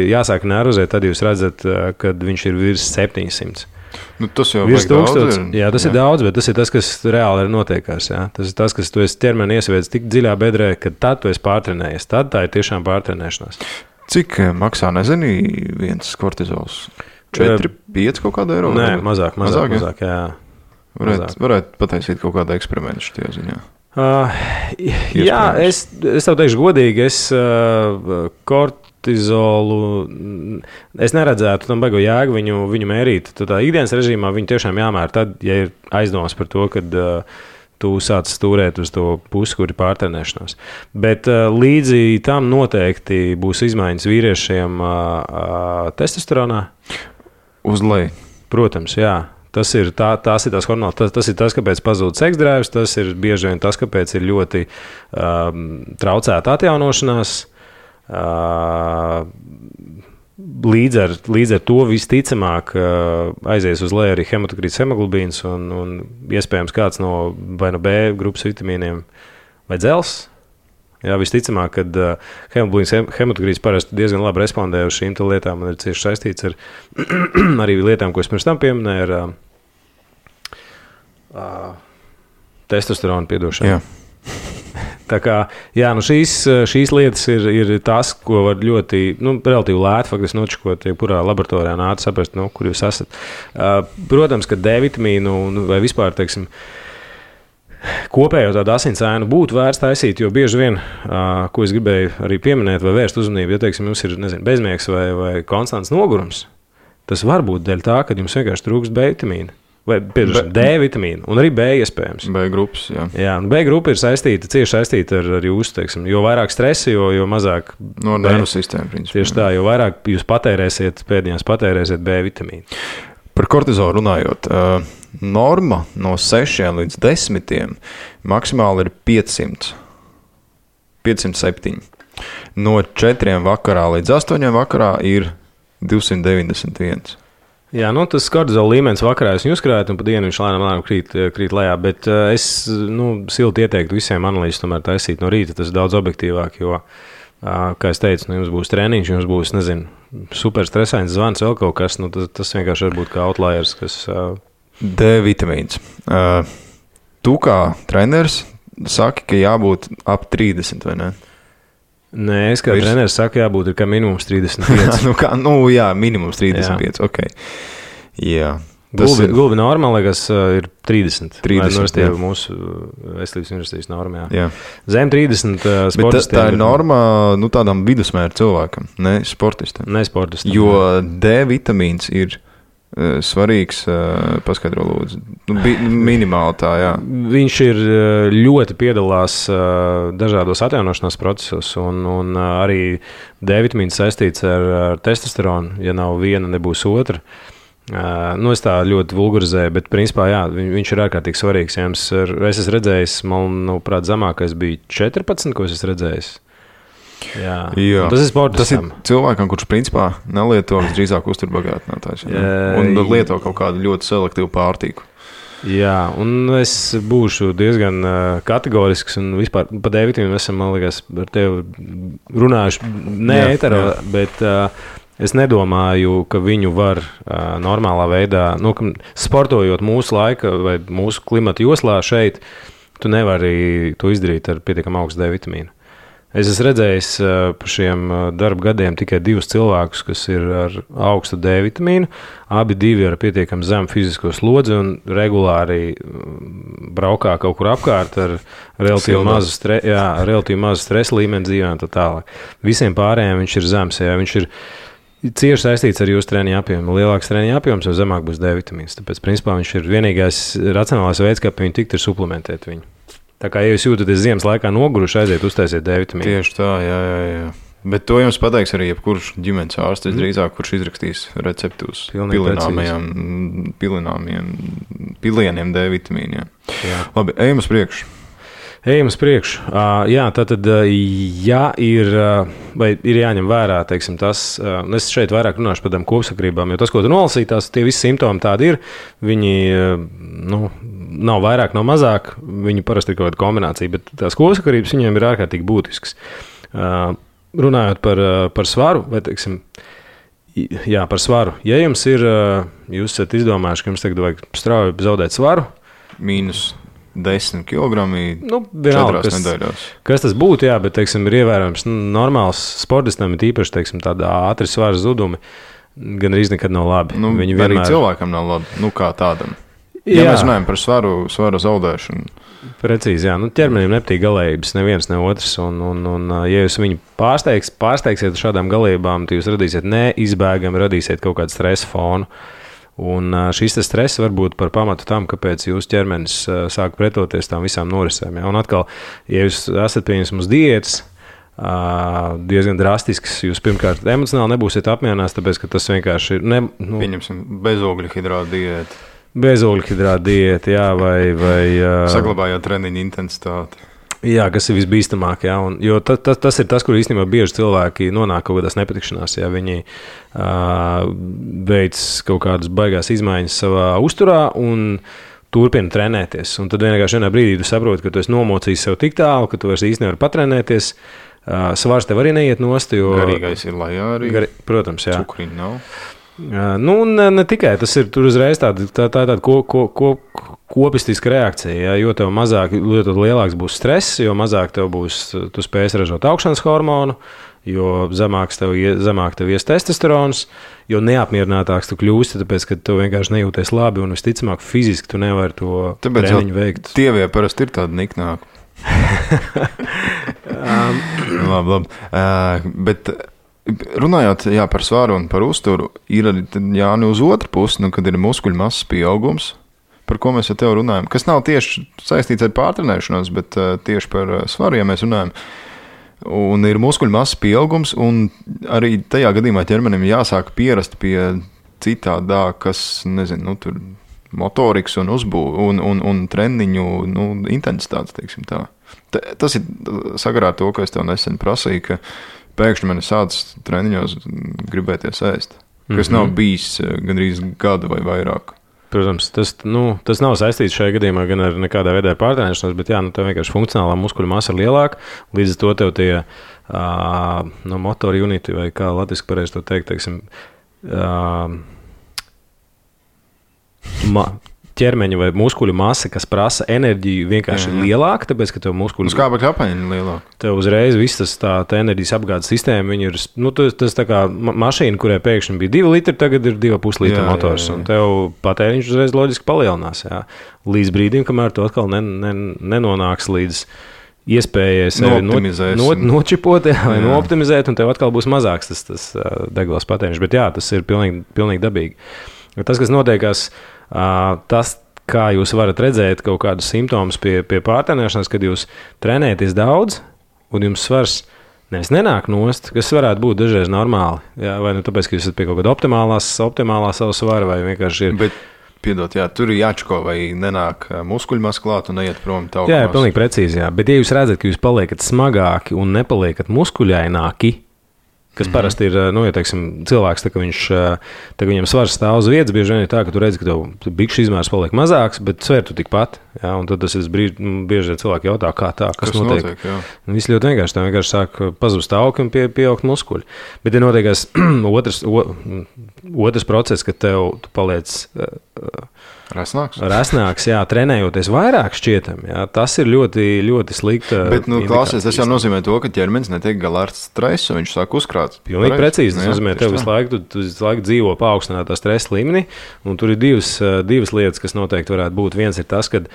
jāsāk nervozēt, tad jūs redzat, kad viņš ir virs 700. Tas jau virs 1000. Jā, tas ir daudz, bet tas ir tas, kas reāli ir notiekās. Jā. Tas ir tas, kas tu esi ķermeni iesviedz tik dziļā bedrē, ka tad tu esi pārtrenējies. Tad tā ir tiešām pārtrenēšanās. Cik maksā, nezini, viens kortizols? 4-5 kaut kāda eiro? Nē, mazāk, jā. Varētu pataisīt kaut kādu eksperimentu šajā ziņā. Jā, es tev teikšu godīgi, kortizolu, es neredzētu tam baigo jēgu viņu mērīt. Tā ikdienas režīmā viņu tiešām jāmēr tad, ja ir aizdomas par to, kad tu sāc stūrēt uz to pusi, kur ir pārtrenēšanās. Bet līdzi tam noteikti būs izmaiņas vīriešiem testosteronā. Uz leju. Protams, jā. Tas ir tās hormonāls, tas ir tas, kāpēc pazūd seksdrēvs, tas ir bieži vien tas, kāpēc ir ļoti traucēta atjaunošanās. Līdz ar to visticamāk aizies uz leju arī hematokrīts hemoglobīns un iespējams kāds no vai no B grupas vitamīniem vai dzels. Jā, visticamāk, kad hematokrīts parasti diezgan labi respondē uz šīm lietām un ir cieši saistīts ar arī lietām, ko es pirms tam pieminēju, ar testosteronu piedošanu. Jā. Tā kā, jā, šīs lietas ir tas, ko var ļoti, relatīvi lēti faktiski nočakot, jebkurā laboratorijā nāca saprast, kur jūs esat. Protams, ka D vitamīnu vai vispār, teiksim, kopējo tādu asinsēnu būtu vērts taisīt, jo bieži vien, ko es gribēju arī pieminēt vai vērst uzmanību, ja, teiksim, jums ir, bezmiegs vai konstants nogurums, tas var būt dēļ tā, ka jums vienkārši trūkst B vitamīna. Vai D vitamīnu, un arī B iespējams. B grupas, jā. Jā, un B grupa ir cieši saistīta ar jūsu, teiksim, jo vairāk stresa, jo mazāk... No nervu sistēma, principā. Tieši tā, jo vairāk jūs pēdējās patērēsiet B vitamīnu. Par kortizolu runājot, norma no 6 līdz 10 maksimāli ir 507. No 4 vakarā līdz 8 vakarā ir 291. Jā, tas kortizola līmenis vakarā es uzkrāju, un pa dienu viņš lēnām krīt lejā, bet es silti ieteiktu visiem analīzes tomēr taisīt no rīta, tas ir daudz objektīvāk, jo, kā es teicu, jums būs treniņš, jums būs, super stresains zvans, vēl kaut kas, tas vienkārši var būt kā outliers, kas... D vitamīns. Tu kā treneris saki, ka jābūt ap 30, vai ne? Nē, es kā treneris saku, jābūt ir kā minimums 35. Jā, minimums 35, jā. Ok. Jā. Gulbi norma, liekas, ir 30. 30, jā. Mūsu veselības universitātes norma, jā. Zem 30 sportistiem. Bet tā ir norma, tādam vidusmēra cilvēkam, ne sportistam. Ne sportistam. Jo D vitamīns ir svarīgs, paskaidro lūdzu. Minimāli tā, jā. Viņš ir ļoti piedalās dažādos atjaunošanās procesos, un arī D vitamīns saistīts ar testosteronu. Ja nav viena, nebūs otra. Es tā ļoti vulgarizēju, bet principā, jā, viņš ir ārkārtīgi svarīgs. Ja es esmu redzējis, manuprāt, zemākais bija 14, ko es esmu redzējis. Jā. Tas ir sportistam. Tas ir cilvēkam, kurš principā nelieto drīzāk uzturbagātinātājs. Un lieto kaut kādu ļoti selektīvu pārtīku. Jā, un es būšu diezgan kategorisks un vispār pa D vitamīnu esam, man liekas, ar tevi runājuši ēterā, bet es nedomāju, ka viņu var normālā veidā, sportojot mūsu laika vai mūsu klimata joslā šeit, tu nevari to izdarīt ar pietiekam augstu D vitamīnu. Es esmu redzējis par šiem darba gadiem tikai 2 cilvēkus, kas ir ar augstu D vitamīnu. Abi 2 ar pietiekami zemu fizisko slodzi un regulāri braukā kaut kur apkārt ar relatīvi mazu stresa līmeni dzīvē un tā tālāk. Visiem pārējiem viņš ir zems, ja viņš ir cieši saistīts ar jūsu treniņu apjomu. Lielāks treniņu apjoms, jo zemāk būs D vitamīns. Tāpēc, principā, viņš ir vienīgais racionālais veids, kā pie viņu tikt, ir suplementēt viņu. Tā kā, ja jūs jūtaties ziemas laikā noguruši, aiziet uztaisiet D vitamīnu. Tieši tā, jā. Bet to jums pateiks arī jebkurš ģimenes ārsts, drīzāk, kurš izrakstīs recepti uz pilieniem D vitamīniem. Labi, ejam uz priekšu. Jā, tātad, ja ir jāņem vērā, teiksim, tas, es šeit vairāk runāšu par tādām kopsakrībām, jo tas, ko tu nolasīji, tie visi simptomi tādi ir, viņi, nav vairāk, nav mazāk, viņi parasti ir kaut kāda kombinācija, bet tās kopsakrības viņiem ir ārkārtīgi būtiskas. Runājot par svaru, vai, teiksim, par svaru, ja jums ir, jūs esat izdomājuši, ka jums tagad vajag strauji zaudēt svaru, mīnus 10 kilogrami, 4 nedēļās. Kas tas būtu, jā, bet, teiksim, ir ievērojams normāls sportistam, ir īpaši, teiksim, tāda ātri svara zudumi, gan arī nekad nav labi. Viņi vienmēr... Arī cilvēkam nav labi, kā tādam. Ja mēs runājam par svaru zaudēšanu. Precīzi, jā. Ķermenim nepatīk galējības, neviens, ne otrs, un ja jūs viņu pārsteigsiet šādām galībām, tad jūs radīsiet neizbēgami, radīsiet kaut kādu stresa fonu. Un šis stress var būt par pamatu tam, kāpēc jūsu ķermenis sāk pretoties tām visām norisēm. Ja? Un atkal, ja jūs esat pieņemts diētas, diezgan drastisks, jūs pirmkārt emocionāli nebūsiet apmierināts, tāpēc, ka tas vienkārši ir... Pieņemsim bezogļhidrātu diētu. Bezogļhidrātu diētu, jā, vai saglabājot treniņu intensitāti. Jā, kas ir visbīstamāk, jā, jo tas ir tas, kur īstenībā bieži cilvēki nonāk kaut kādās nepatikšanās, ja viņi veic kaut kādas baigās izmaiņas savā uzturā un turpina trenēties. Un tad vienā brīdī tu saproti, ka tu esi nomocījis sev tik tālu, ka tu vairs īsti nevari patrenēties. Svars tev arī neiet nost, jo... Garīgais ir lejā arī. Protams, jā. Cukriņu nav. Ne tikai, tas ir tur uzreiz tāda kopistiska reakcija, ja, jo tev mazāk, jo lielāks būs stress, jo mazāk tev būs, tu spēsi ražot augšanas hormonu, jo zemāk tev ies testosterons, jo neapmierinātāks tu kļūsti, tāpēc, ka tu vienkārši nejūties labi un visticamāk fiziski tu nevari to treniņu veikt. Tievie parasti ir tādi niknāki. labi. Bet runājot par svaru un par uzturu, ir arī uz otru pusi, kad ir muskuļu masas pieaugums, par ko mēs ar tevi runājam, kas nav tieši saistīts ar pārtrenēšanos, bet tieši par svaru, ja mēs runājam. Un ir muskuļu masas pieaugums, un arī tajā gadījumā ķermenim jāsāk pierast pie citādā, kas, nezinu, tur motorikas un uzbūve un treniņu intensitātes, teiksim tā. Tas ir sakarā ar to, ko es tev nesen prasīju, ka pēkšņi man ir sācis treniņos gribēties ēst, kas nav bijis gandrīz gadu vai vairāk. Protams, tas nav saistīts šajā gadījumā gan ar nekādā veidā pārtrenēšanos, bet tev vienkārši funkcionālā muskuļu masa ir lielāka, līdz ar to tev tie motori uniti, vai kā latviski pareizi to teikt, teiksim, ķermeņa vai muskuļu masa, kas prasa enerģiju, vienkārši ir lielāka, tāpēc, ka tev muskuļu... Skābekļa apmaiņa ir lielāka. Tev uzreiz viss tā enerģijas apgādes sistēma, viņi ir, tas tā kā mašīna, kurai pēkšņi bija 2 litri, tagad ir 2,5 litri motors, un tev patēriņš uzreiz loģiski palielinās, līdz brīdim, kamēr tu atkal nenonāks līdz iespējai sevi nočipot vai nooptimizēt, un tev atkal būs mazāks tas degvielas patēriņš, bet tas ir pilnīgi dabīgi. Tas, kas notiekās, tas, kā jūs varat redzēt kaut kādus simptomus pie pārtrenēšanās, kad jūs trenējaties daudz, un jums svars nevis nenāk nost, kas varētu būt dažreiz normāli, vai tāpēc, ka jūs esat pie kaut kāda optimālā savu svaru, vai vienkārši ir... Bet, piedot, tur ir jāčko, vai nenāk muskuļmas klāt un neiet prom tauku masu. Pilnīgi precīzi, bet ja jūs redzat, ka jūs paliekat smagāki un nepaliekat muskuļaināki, kas parasti ir, ja teiksim, cilvēks, tā, ka viņam svars stāv uz vietas, bieži vien ir tā, ka tu redzi, ka tev bikšu izmērs paliek mazāks, bet sver tu tikpat, un tad tas ir bieži vien cilvēki jautā, kā tā, kas notiek. Viss ļoti vienkārši, tā vienkārši sāk pazust augi un pieaugt muskuļi. Bet ir notiekās otrs process, ka tu paliec... Rasnāks, trenējoties vairāk šķietam, tas ir ļoti, ļoti slikta. Bet, klausies, tas jau nozīmē to, ka ķermenis netiek galā ar stresu, viņš sāk uzkrāt. Pilnīgi precīzi, tas nozīmē, tev visu laiku dzīvo paaugstinātā stresa līmenī, un tur ir divas lietas, kas noteikti varētu būt. Viens ir tas, ka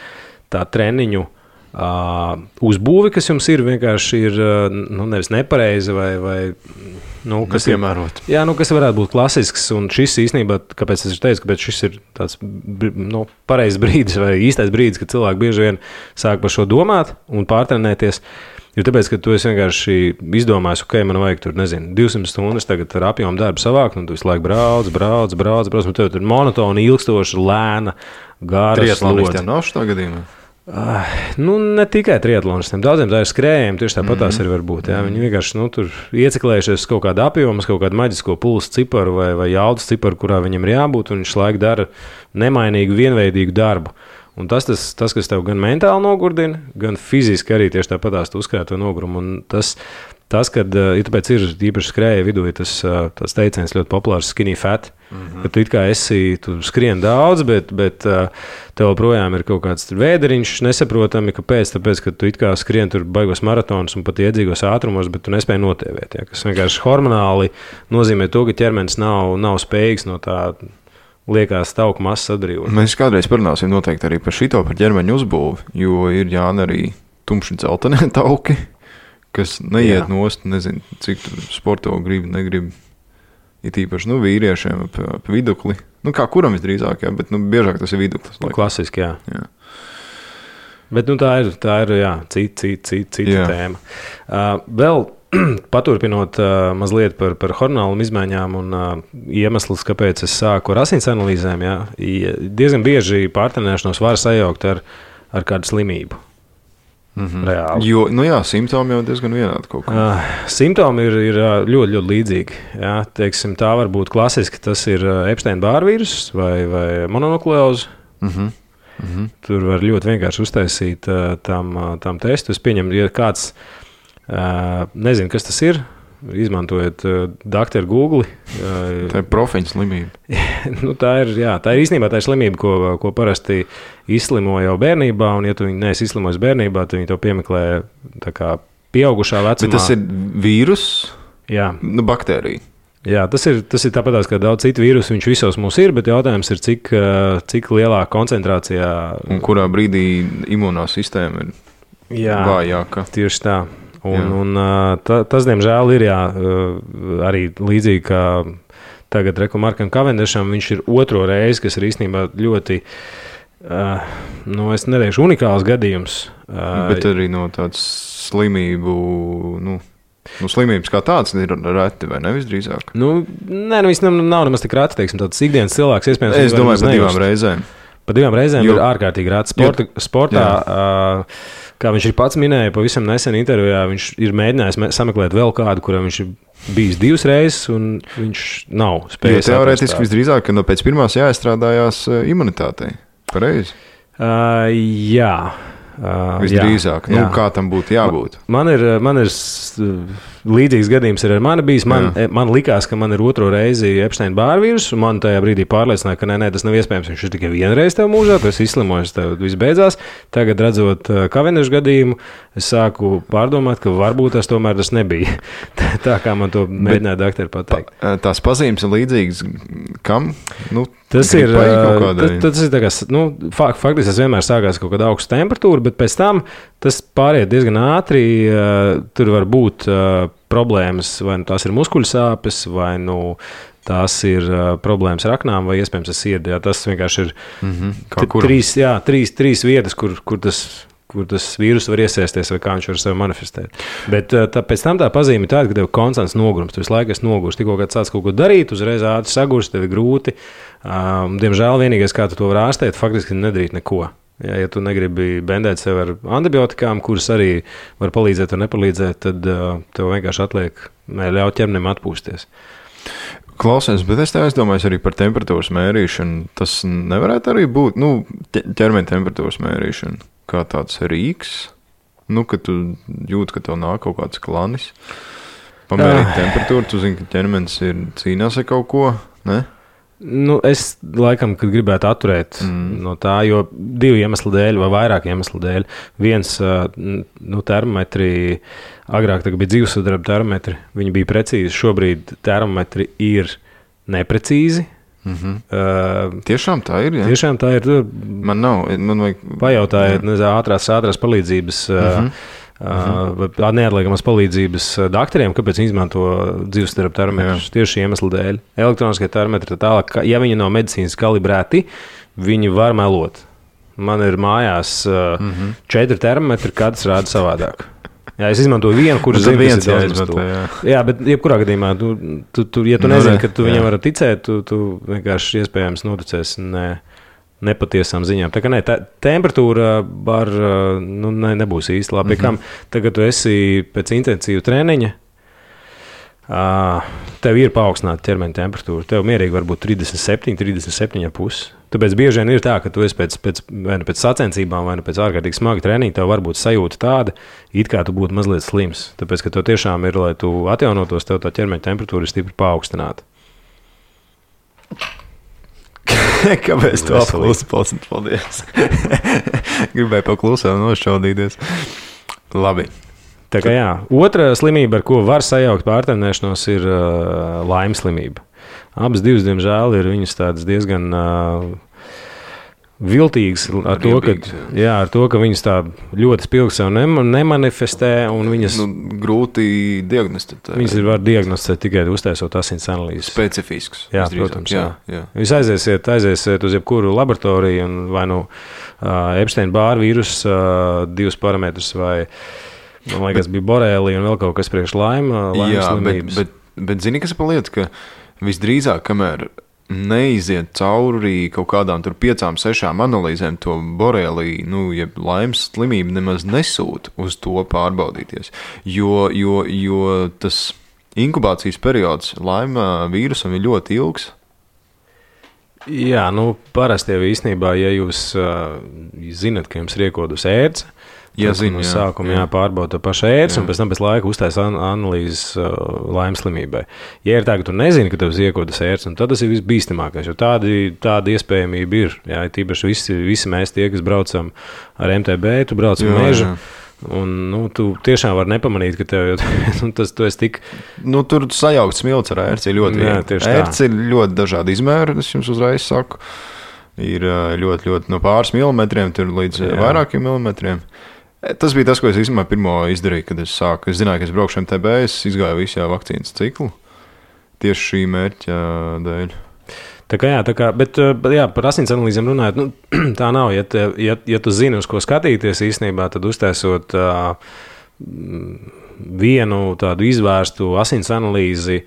tā treniņu uzbūve, kas jums ir, vienkārši ir nevis nepareiza vai kas piemērot. Kas varētu būt klasisks, un šis īstenībā, kāpēc es teicu, kāpēc šis ir tāds pareizs brīdis vai īstais brīdis, kad cilvēki bieži vien sāk par šo domāt un pārtrenēties, ir tāpēc, ka tu esi vienkārši izdomājis, man vajag tur, 200 stundas tagad ar apjomu darbu savākt, un tu visu laiku brauc, un tev tur monotoni, ilgstoši, lēna, gāra slodze. Triatlonistiem nav šitā gadījumā? Ne tikai triatlonistiem, daudziem tā ir skrējiem, tieši tāpat tās arī var būt. Viņi vienkārši tur ieciklējušies kaut kādu apjomu, kaut kādu maģisko pulsu ciparu vai jaudas ciparu, kurā viņam ir jābūt, un viņš laiku dara nemainīgu, vienveidīgu darbu. Un tas, kas tev gan mentāli nogurdina, gan fiziski arī tieši tāpat tās uzkrāt to nogurumu. Un tas, kad tāpēc ir īpaši skrēja vidū, ir tas teiciens ļoti populārs skinny fat, ka tu skrien daudz, bet tev joprojām ir kaut kāds vēderiņš, nesaprotami, kāpēc, tāpēc, ka tu skrien tur baigos maratonus un pat iedzīgos ātrumos, bet tu nespēji notievēt, kas vienkārši hormonāli nozīmē to, ka ķermenis nav spējīgs no tā liekas tauku masas atbrīvot. Mēs kādreiz parunāsim noteikti arī par šito, par ķermeņa uzbūvi, jo ir arī tumši dzeltenie tauki, kas neiet nost, nezinu, cik tur sporto negrib. Ir īpaši vīriešiem ap vidukli. Kā kuram visdrīzāk, bet biežāk tas ir viduklis. Klasiski, jā. Bet tā ir cita tēma. Vēl paturpinot mazliet par hormonālām izmaiņām un iemeslus, kāpēc es sāku ar asins analīzēm, diezgan bieži pārtrenēšanos var sajaukt ar kādu slimību. Reāli. Jo, simptomi jau diezgan vienādi kaut kā. Simptomi ir ļoti, ļoti līdzīgi. Teiksim, tā var būt klasiski, tas ir Epsteina-Barra vīruss vai mononukleoze. Tur var ļoti vienkārši uztaisīt tam testu. Es pieņemu, ja kāds nezinu, kas tas ir, izmantojot doktoru Google. Tā ir profiņa slimība. Tā ir īstenībā tā ir slimība, ko parasti izslimo jau bērnībā, un ja tu viņu neesi izslimojis bērnībā, tad viņi to piemeklē tā kā pieaugušā vecumā. Bet tas ir vīrus, Jā. Nu, baktērija. Jā, tas ir tāpatās, kā daudz citu vīrusu, viņš visos mums ir, bet jautājums ir, cik lielā koncentrācijā. Un kurā brīdī imūnā sistēma ir vājāka. Tieši tā. Tas, diemžēl, ir arī līdzīgi kā tagad Markam Cavendisham, viņš ir otro reizi, kas ir īstenībā ļoti, es neteikšu unikāls gadījums. Bet arī no tāds slimību, slimības kā tāds ir reti, vai ne visdrīzāk? Viss nav nemaz tik reti, teiksim, tāds ikdienas cilvēks, iespējams. Es domāju par 2 reizēm. Pa 2 reizēm ir ārkārtīgi reti. Sportā, kā viņš ir pats minēja, pavisam nesen intervijā, viņš ir mēģinājis sameklēt vēl kādu, kuram viņš ir bijis 2 reizes, un viņš nav spējis. Teorētiski visdrīzāk, ka pēc pirmās jāiestrādājās imunitātei. Pareizi? Jā. Visdrīzāk. Kā tam būtu jābūt? Man ir līdzīgs gadījums ar mani bijis. Man likās, ka man ir otro reizi Epsteina-Barra vīruss, un man tajā brīdī pārliecināja, ka nē, tas nav iespējams. Viņš ir tikai vienreiz tev mūžā, tu esi izslimojis, tev viss beidzās. Tagad, redzot Cavendisha gadījumu, es sāku pārdomāt, ka varbūt tas tomēr tas nebija. Tā kā man to mēģināja doktori pateikt. Tās pazīmes ir līdzīgas kam? Tas ir tā kā, faktiski tas vienmēr sākās kaut kāda augsta temperatūra, bet pēc tam tas pāriet diezgan ātri. Tur var būt problēmas, vai tās ir muskuļu sāpes, vai tās ir problēmas ar aknām, vai iespējams ar sirdi. Tas vienkārši ir trīs vietas, kur tas vīrus var iesēsties, vai kā viņš var sevi manifestēt. Bet pēc tam tā pazīme ir tāda, ka tev konstants nogurums, tu visu laiku esi nogurs. Tikko, kad sāc kaut ko darīt, uzreiz ātri sagurs, tev ir grūti. Diemžēl vienīgais, kā tu to var ārstēt, faktiski nedarīt neko. Ja tu negribi bendēt sev ar antibiotikām, kuras arī var palīdzēt vai nepalīdzēt, tad tev vienkārši atliek ļaut ķermenim atpūsties. Klausies, bet es te aizdomājos arī par temperatūras mērīšanu. Tas nevarētu arī būt ķermeņa temperatūras mērīšana kā tāds rīks, kad tu jūti, ka tev nāk kaut kāds klanis. Pamērīt temperatūru, tu zini, ka ķermenis cīnās ar kaut ko, ne? Es laikam, kad gribētu atturēt no tā, jo 2 iemeslu dēļ vai vairāk iemeslu dēļ. Viens, termometri, agrāk bija dzīvesudraba termometri, viņi bija precīzi, šobrīd termometri ir neprecīzi. Tiešām tā ir, ja? Tiešām tā ir. Man nav, man vajag... Pajautājiet, ātrās palīdzības, neatliekamas palīdzības doktoriem, kāpēc viņi izmanto dzīvesudraba termometrus tieši iemeslu dēļ. Elektroniskie termometri tālāk, ja viņi nav medicīnas kalibrēti, viņi var melot. Man ir mājās 4 termometri, katrs rāda savādāk. Jā, es izmantoju vienu, kurš zina, kas ir jāizmanto. Jā, bet jebkurā gadījumā, ja tu nezini, ka tu viņam vari ticēt, tu vienkārši iespējams noticēsi nepatiesām ziņām. Tā kā temperatūra nebūs īsti labi. Kam tagad tu esi pēc intensīva treniņa, tev ir paaugstināta ķermeņa temperatūra. Tev mierīgi var būt 37,5. Tāpēc bieži vien ir tā, ka tu esi pēc sacensībām vai pēc ārkārtīgi smaga treniņa, tev var būt sajūta tāda, it kā tu būtu mazliet slims. Tāpēc, ka tev tiešām ir, lai tu atjaunotos, tev tā ķermeņa temperatūra ir stipri paaugstināta. Kāpēc tu apklusi? Paldies. Gribēju paklusēt un nošķaudīties. Labi. Tā kā jā. Otra slimība, ar ko var sajaukt pārtrenēšanos, ir laimes slimība. Abas divas, diemžēl, ir viņas tādas diezgan viltīgas ar to, ka viņas tā ļoti spilgti sev nemanifestē un viņas... grūti diagnosticēt. Viņas var diagnosticēt tikai uztaisot asins analīzes. Specifisks. Jā, protams. Jā. Jūs aiziesiet uz jebkuru laboratoriju un vai Epsteina-Barra vīruss 2 parametrus vai, man liekas, bija borēlija un vēl kaut kas priekš laimes slimības. Bet zini, kas ir pa lietu, ka visdrīzāk, kamēr neiziet cauri kaut kādām 5-6 analīzēm, to borēliju, jeb laimes slimību nemaz nesūta uz to pārbaudīties. Jo tas inkubācijas periods laima vīrusam ir ļoti ilgs. Jā, parasti jau īstenībā, ja jūs zinat, ka jums ir iekodus ērce, no sākuma jāpārbauda to pašu ērci un pēc tam pēc laika uztaisa analīzes laimes slimībai. Ja ir tā, ka tu nezini, ka tev ir iekodas ērci, tad tas ir visbīstamākais, jo tāda iespējamība ir. Jā, tīpaši visi mēs tie, kas braucam ar MTB, tu brauc ar mežu, Un, tu tiešām vari nepamanīt, ka tev tu esi tik... Tur sajaukt smilts ar ērci ļoti viegli. Ērci ir ļoti dažādi izmēri, es jums uzreiz saku. Ir ļoti no pāris milimetriem līdz vairākiem milimetriem. Tas bija tas, ko es īstenībā pirmo izdarīju, kad es sāku. Es zināju, ka es braukšu MTB, es izgāju visu vakcīnas ciklu tieši šī mērķa dēļ. Bet par asins analīzēm runājot, tā nav. Ja tu zini, uz ko skatīties īstenībā, tad uztaisot vienu tādu izvērstu asins analīzi,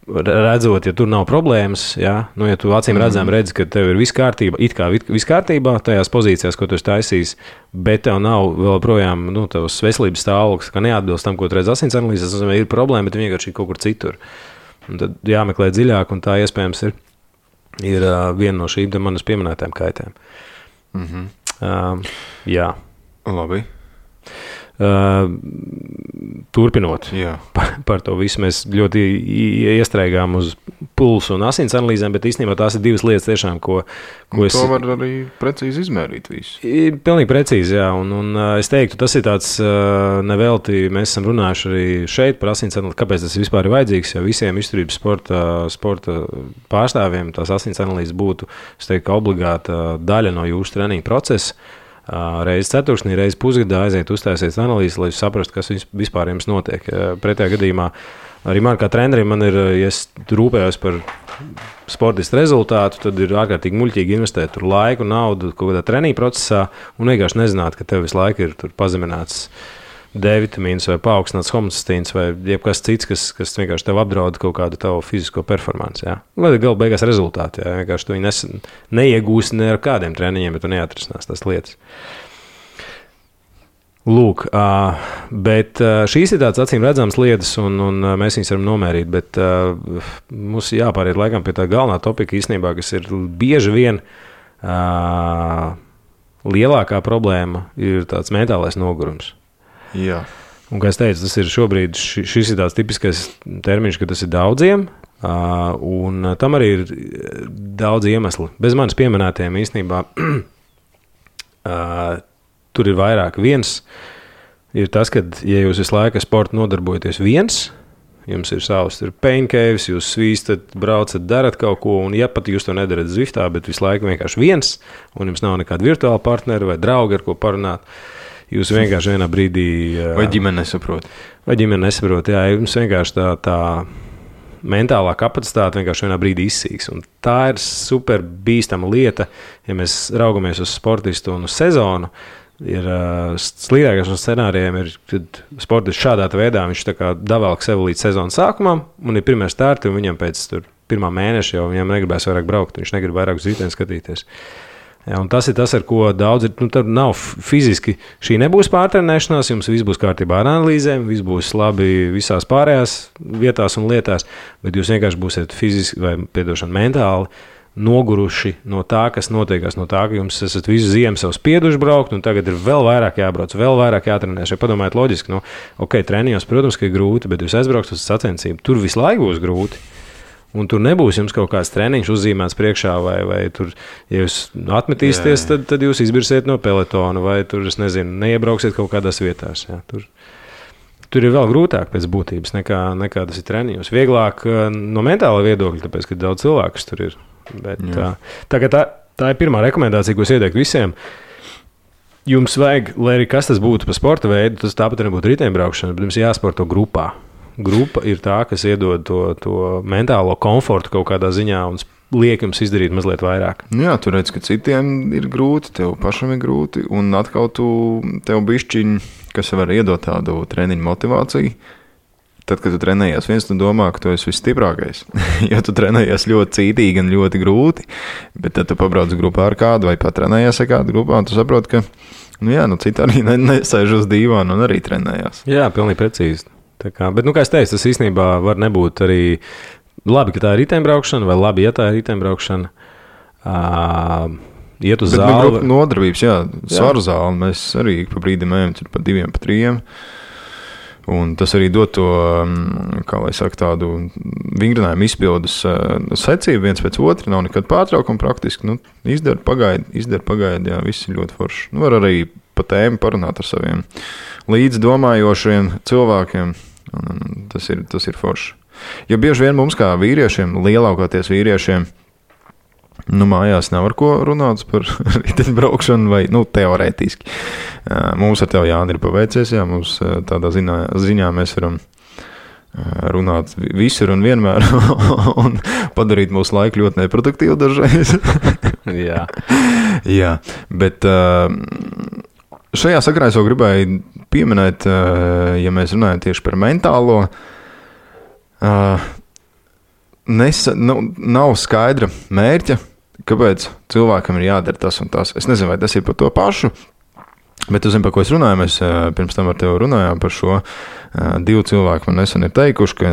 redzot, ja tur nav problēmas, ja tu acīm redzam redzi, ka tev ir viss kārtībā, it kā viss kārtībā tajās pozīcijās, ko tu esi taisījis, bet tev nav vēl projām tavs veselības stāvoklis, ka neatbilst tam, ko tu redzi asins analīzēs, tas ir problēma, bet vienkārši kaut kur citur. Un tad jāmeklē dziļāk, un tā iespējams ir viena no šīm manas pieminētām kaitēm. Jā. Labi. Turpinot par to visu, mēs ļoti iestrēgām uz pulsu un asins analīzēm, bet īstenībā tās ir divas lietas tiešām, ko es... To var arī precīzi izmērīt visu. Pilnīgi precīzi, jā, un es teiktu, tas ir tāds nevelti, mēs esam runājuši arī šeit par asins analīzi, kāpēc tas vispār ir vajadzīgs, ja visiem izturības sporta pārstāvjiem tās asins analīzes būtu, es teiktu, obligāta daļa no jūsu treniņa procesa. Reizi ceturksnī, reizi pusgadā aiziet uztaisiet analīzi, lai saprastu, kas vispār jums notiek. Pretējā gadījumā arī man kā trenerim ja es rūpējos par sportistu rezultātu, tad ir ārkārtīgi muļķīgi investēt tur laiku, naudu kaut kādā treniņa procesā un vienkārši nezināt, ka tev visu laiku ir tur pazemināts D-vitamīns vai paaugstināts homocistīns vai jebkas cits, kas vienkārši tev apdraud kaut kādu tavu fizisko performanci. Ja? Vai galu beigās rezultāti. Ja? Vienkārši tu viņu neiegūsi ne ar kādiem treniņiem, bet tu neatrisinās tās lietas. Lūk, bet šīs ir tādas acīm redzamas lietas, un mēs viņus varam nomērīt, bet mums jāpāriet laikam pie tā galvenā topika īstenībā, kas ir bieži vien lielākā problēma, ir tāds mentālais nogurums. Jā. Un, kā es teicu, tas ir šobrīd, šis ir tāds tipiskais termiņš, ka tas ir daudziem, un tam arī ir daudz iemesli. Bez manis pieminētiem īstenībā tur ir vairāk. Viens ir tas, ka, ja jūs visu laiku ar sportu nodarbojaties viens, jums ir savs pain caves, jūs svīstat, braucat, darat kaut ko, un ja pat jūs to nedarat Zwiftā, bet visu laiku vienkārši viens, un jums nav nekāda virtuāla partneri vai draugi, ar ko parunāt, jūs vienkārši vienā brīdī... Vai ģimene nesaprot. Jā, jums vienkārši tā mentālā kapacitāte vienkārši vienā brīdī izsīks. Un tā ir super bīstama lieta, ja mēs raugamies uz sportistu un uz sezonu. Ir slīdākais no scenārijiem, kad sportists šādā veidā viņš tā kā davēlk sev līdz sezonas sākumam, un ir pirmie starti, un viņam pēc pirmā mēneša jau viņam negribēs vairāk braukt, viņš negrib vairāk uz riteni skatīties. Ja, un tas ir tas, ar ko daudz ir. Tad nav fiziski, šī nebūs pārtrenēšanās, jums viss būs kārtībā ar analīzēm, viss būs labi visās pārējās vietās un lietās, bet jūs vienkārši būsiet fiziski vai, mentāli noguruši no tā, kas notiekās, no tā, ka jums esat visu ziemu sev spieduši braukt, un tagad ir vēl vairāk jābrauc, vēl vairāk jātrenēs. Ja padomājiet loģiski, treniņos, protams, ka ir grūti, bet jūs aizbraukt uz sacensību, tur visu laiku būs grūti. Un tur nebūs jums kaut kāds treniņš uzzīmēts priekšā, vai tur, ja jūs atmetīsieties, tad jūs izbirsiet no pelotona, vai tur, es nezinu, neiebrauksiet kaut kādās vietās. Jā. Tur ir vēl grūtāk pēc būtības nekā tas ir treniņos. Vieglāk no mentāla viedokļa, tāpēc, ka daudz cilvēkus tur ir. Bet, tā ir pirmā rekomendācija, ko es ieteiktu visiem. Jums vajag, lai arī kas tas būtu pa sporta veidu, tas tāpat nebūtu riteņbraukšana, bet jums jāsporto grupā. Grupa ir tā, kas iedod to mentālo komfortu kaut kādā ziņā un liek jums izdarīt mazliet vairāk. Jā, tu redz, ka citiem ir grūti, tev pašam ir grūti, un atkal tev bišķiņ, kas var iedot tādu treniņu motivāciju. Tad, kad tu trenējies viens, tu domā, ka tu esi visstiprākais. Ja tu trenējies ļoti cītīgi un ļoti grūti, bet tad tu pabrauc grupā ar kādu vai pat trenējies ar kādu grupā, un tu saproti, ka citi arī nesēž uz dīvānu un arī trenējās. Jā, pilnīgi precīzi. Bet, kā es teicu, tas īstenībā var nebūt arī labi, ka tā ir riteņbraukšana, vai labi, ja tā ir riteņbraukšana. Iet uz zāli. Bet nodarbības, svaru zāli, mēs arī pa brīdim ejam pa 2, pa 3. Un tas arī dod to, kā lai saka, tādu vingrinājumu izpildes secību viens pēc otra, nav nekad pārtraukuma praktiski. Izdara pagaidi, jā, viss ir ļoti forši. Var arī pa tēmu parunāt ar saviem līdzdomājošiem cilvēkiem. Un tas ir forši. Jo bieži vien mums kā vīriešiem, lielākoties vīriešiem, mājās nav ar ko runāt par riteņbraukšanu vai, teorētiski. Mums ar tevi, Jāni, ir paveicies, mums tādā ziņā mēs varam runāt visur un vienmēr un padarīt mūsu laiku ļoti neproduktīvu dažreiz. Jā, bet šajā sakarā es jau gribēju pieminēt, ja mēs runājam tieši par mentālo, nav skaidra mērķa, kāpēc cilvēkam ir jādara tas un tas. Es nezinu, vai tas ir par to pašu, bet tu zini, par ko es runāju. Mēs pirms tam ar tevi runājām par šo. 2 cilvēki man nesen ir teikuši, ka,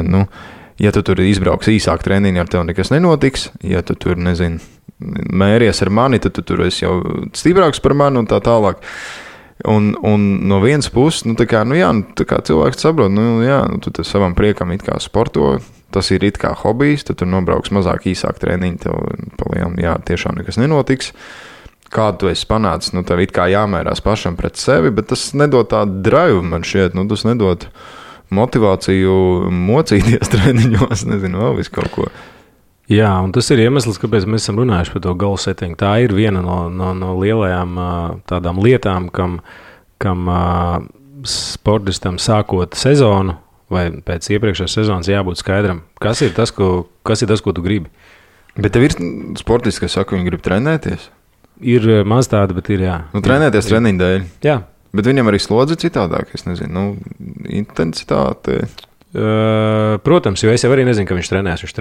ja tu tur izbrauks īsāk treniņu, ar tevi nekas nenotiks. Ja tu tur, mēries ar mani, tad tu tur esi jau stiprāks par mani un tā tālāk. Un no vienas puses, tā kā cilvēks saprot, tu savam priekam it kā sporto, tas ir it kā hobijs, tad tu nobrauks mazāk īsāk treniņu, tev palielam, tiešām nekas nenotiks. Kādu tu esi panācis, tev it kā jāmērās pašam pret sevi, bet tas nedod tādu drive, man šķiet, tas nedod motivāciju mocīties treniņos, nezinu, vēl visu kaut ko. Jā, un tas ir iemesls, kāpēc mēs esam runājuši par to goal setting. Tā ir viena no lielajām tādām lietām, kam sportistam sākot sezonu vai pēc iepriekšējās sezonas jābūt skaidram. Kas ir tas, ko tu gribi? Bet tev ir sportisti, kas saka, viņi grib trenēties? Ir maz tāda, bet ir jā. Trenēties treniņu dēļ? Jā. Bet viņam arī slodzi citādāk, es nezinu, intensitāte... Protams, jo es jau arī nezinu, ka viņš trenēs. Viņš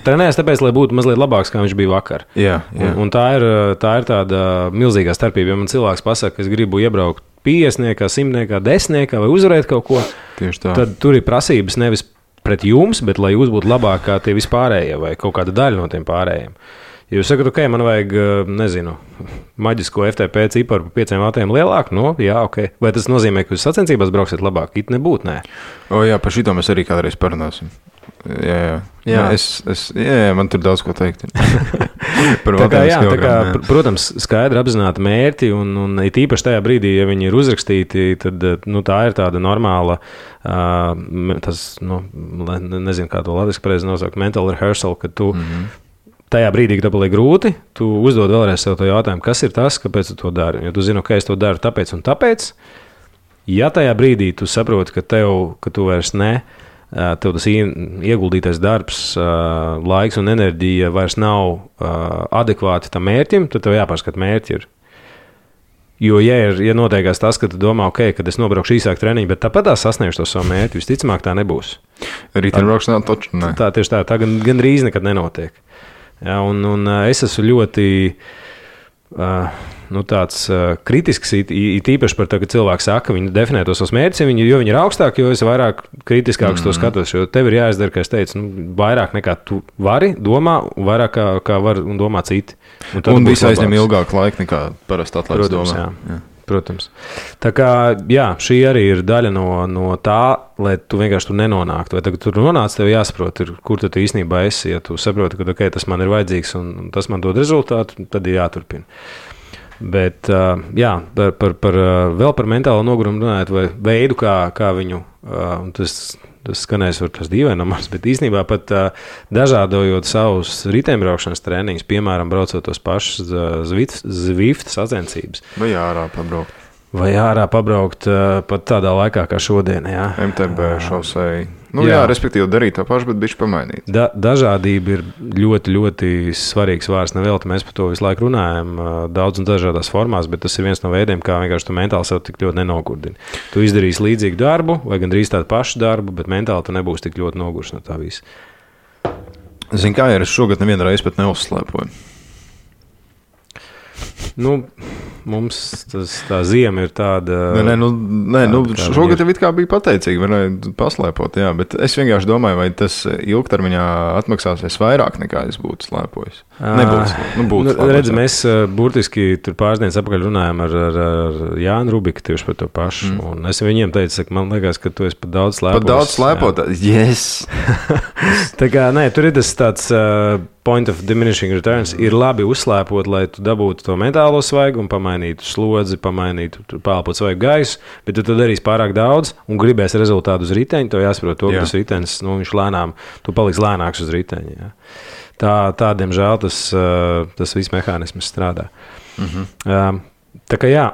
trenēs tāpēc, lai būtu mazliet labāks, kā viņš bija vakar. Jā. Un tā ir tāda milzīgā starpība. Ja man cilvēks pasaka, ka es gribu iebraukt 50, 100, 10 vai uzvarēt kaut ko, tad tur ir prasības nevis pret jums, bet lai jūs būtu labāk kā tie vispārējie vai kaut kāda daļa no tiem pārējiem. Ja jūs sakat, man vajag, maģisko FTP ciparu pa 5 vatiem lielāku, ok. Vai tas nozīmē, ka jūs sacensībās brauksiet labāk? It nebūtu, nē. Par šito mēs arī kādreiz parunāsim. Jā. Man tur daudz ko teikt. Protams, skaidri apzināti mērķi, un it īpaši tajā brīdī, ja viņi ir uzrakstīti, tad tā ir tāda normāla, nezinu, kā to latviski pareizi nosaukt, mental rehearsal, ka tu tajā brīdī, kad tev paliek grūti, tu uzdod vēlreiz sev to jautājumu, kas ir tas, kāpēc tu to dari. Jo tu zini, ka es to daru tāpēc un tāpēc. Ja tajā brīdī tu saproti, ka tu vairs tev tas ieguldītais darbs, laiks un enerģija vairs nav adekvāti tam mērķim, tad tev jāpārskat mērķi ir. Jo, ja noteikās tas, ka tu domā, kad es nobraukšu īsāk treniņu, bet tāpat sasniegšu to savu mērķi, visticamāk tā nebūs. Riteņbraukšanā taču ne. Tā tieši tā gandrīz nekad nenotiek. Ja, un es esmu ļoti tāds kritisks, īpaši par to, ka cilvēki saka, ka viņi definē tos savus mērķus, jo viņi ir augstāki, jo es vairāk kritiskāks to skatos. Jo tev ir jāizdara, kā es teicu, vairāk nekā tu vari domā, vairāk kā var un domā citi. Un viss aizņem ilgāku laiku nekā parasti atlētas domā. Jā. Protams. Tā kā, šī arī ir daļa no tā, lai tu vienkārši tur nenonāktu. Vai tagad tur nonāc, tev jāsaprot, kur tu īstenībā esi. Ja tu saproti, ka tas man ir vajadzīgs un tas man dod rezultātu, tad ir jāturpina. Bet, vēl par mentālo nogurumu runājot, vai veidu, kā viņu, tas skanēs var tas dīvainamās, bet īstenībā pat dažādojot savus riteņbraukšanas treniņus, piemēram, braucot tos pašus Zwift sacensības. Vai ārā pabraukt. Pat tādā laikā kā šodien, jā. MTB šosei. Respektīvi darīt to pašu, bet bišķi pamainīt. Dažādība ir ļoti, ļoti svarīgs vārds. Nevelti mēs par to visu laiku runājam, daudz un dažādās formās, bet tas ir viens no veidiem, kā vienkārši tu mentāli sev tik ļoti nenogurdini. Tu izdarīsi līdzīgu darbu vai gandrīz tādu pašu darbu, bet mentāli tu nebūsi tik ļoti nogurs no tā visa. Zini, kā es šogad nevienu reizi pat neuzslēpoju? Mums tā ziema ir tāda... Šogad jau it kā bija pateicīgi, varēja paslēpot, bet es vienkārši domāju, vai tas ilgtermiņā atmaksāsies vairāk nekā es būtu slēpojis. Nebūs. Redz, mēs burtiski tur pāris dienas apakaļ runājām ar Jānu Rubiku tieši par to pašu, un es viņiem teicu, man liekas, ka tu esi pat daudz slēpojis. Pat daudz slēpot? Yes! Tā kā, tur ir tas tāds point of diminishing returns ir labi uzslēpot, lai tu dabūtu to mentālo svaigumu, pamainītu slodzi, pamainītu pālpot svaigu gaisu, bet tu darīsi pārāk daudz un gribēsi rezultātu uz riteņa, to jāsaprot to, ka tas ritenis, viņš lēnām, tu paliks lēnāks uz riteņa. Jā. Tā diemžēl, tas viss mehānisms strādā. Tā kā jā,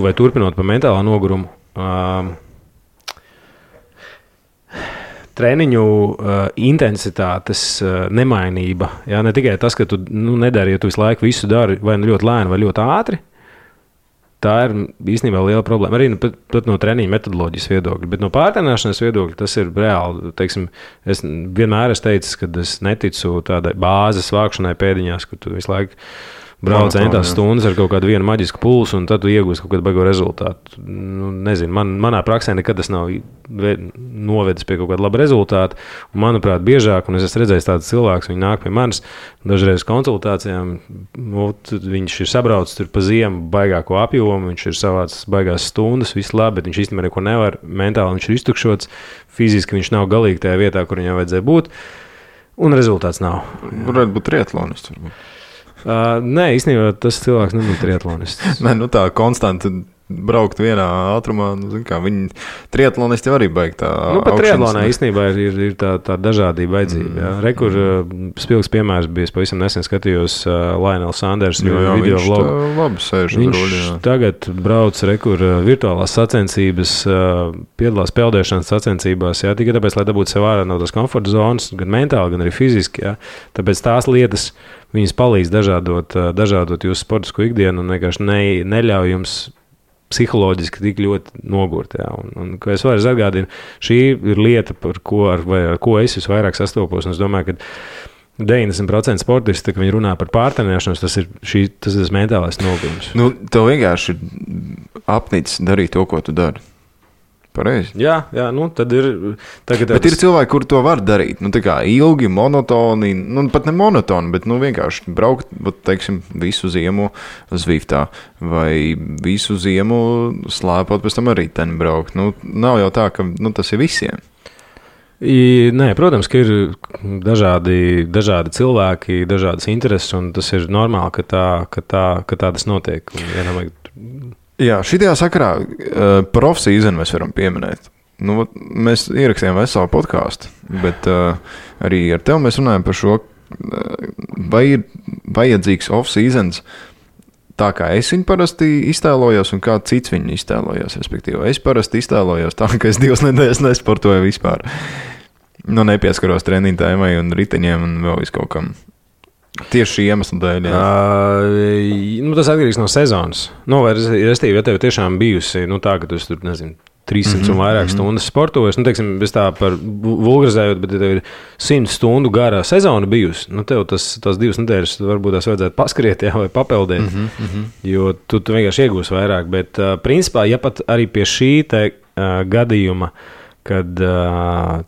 vai turpinot par mentālā nogurumu, treniņu intensitātes nemainība, jā, ne tikai tas, ka tu nedari, ja tu visu laiku visu dari vai ļoti lēni vai ļoti ātri, tā ir īstenībā liela problēma. Arī pat no treniņa metodoloģijas viedokļa, bet no pārtrenēšanas viedokļa tas ir reāli. Teiksim, es vienmēr esmu teicis, ka es neticu tādai bāzes vākšanai pēdiņās, kur tu visu laiku brauc centās stundas ar kaut kādu vienu maģisku pulsu, un tad tu iegūsi kaut kādu baigo rezultātu. Nezinu, manā praksē nekad tas nav novedis pie kaut kāda laba rezultāta. Un, manuprāt, biežāk, un es esmu redzējis tādus cilvēkus, viņi nāk pie manis dažreiz konsultācijām, viņš ir sabraucis tur pa ziemu baigāko apjomu, viņš ir savāds baigās stundas, viss labi, bet viņš īstenībā neko nevar, mentāli viņš ir iztukšots, fiziski viņš nav galīgi tajā vietā, kur viņam vajadzēja būt, un rezultāts nav. Varētu būt triatlonists, varbūt. Nē, īstenībā tas cilvēks nebūtu triatlonists. Nē, tā konstanti braukt vienā ātrumā, viņi triatlonisti arī baig tā. Pat triatlonā īstenībā ir tā dažādība vajadzība. Rekur spilgs piemērs bija, es pavisam nesen skatījos Lionels Sanders video vlogu. Labi sēž uz ruļa. Viņš tagad brauc rekur virtuālās sacensības, piedalās peldēšanas sacensībās, jā, tikai tāpēc, lai dabūtu sev ārā no tās komforta zonas, gan mentāli, gan arī fiziski, jā. Tāpēc tās lietas viņas palīdz dažādot jūsu sportisko ikdienu un vienkārši neļauj jums psiholoģiski tik ļoti nogurt. Jā. Un, ko es varu atgādinu, šī ir lieta, ar ko es visvairāk sastopos. Un es domāju, ka 90% sportisti, kad viņi runā par pārtrenēšanos, tas ir mentālais nogurums. Tev vienkārši ir apnicis darīt to, ko tu dari. Pareizi. Jā, tad ir. Bet ir cilvēki, kuri to var darīt. Tā kā ilgi, monotoni, pat ne monotoni, bet vienkārši braukt, teiksim, visu ziemu Zviftā vai visu ziemu slēpot, pēc tam arī ten braukt. Nav jau tā, ka tas ir visiem. Nē, protams, ka ir dažādi cilvēki, dažādas intereses, un tas ir normāli, ka tā tas notiek. Jā, šitajā sakarā profsīzenu mēs varam pieminēt. Mēs ierakstījām veselu podkāstu, bet arī ar tevi mēs runājam par šo, vai ir vajadzīgs off-seasons tā, kā es viņu parasti iztēlojos un kā cits viņu iztēlojos. Respektīvi, es parasti iztēlojos tā, ka es 2 nedēļas nesportoju vispār. Nepieskaros treniņu tēmai un riteņiem un vēl viskaut kam. Tieši šī iemesla dēļ. Tas atkarīgs no sezonas. Restīvi, ja tev tiešām bijusi tā, ka tu tur, nezinu, 300 un vairāk stundas sportojas, teiksim, bez tā par vulgarizējot, bet ja tev ir 100 stundu gara sezona bijusi, tev tās 2 nedēļas varbūt tās vajadzētu paskriet, jā, vai papeldēt, jo tu vienkārši iegūsi vairāk. Bet principā, ja pat arī pie šī te gadījuma, kad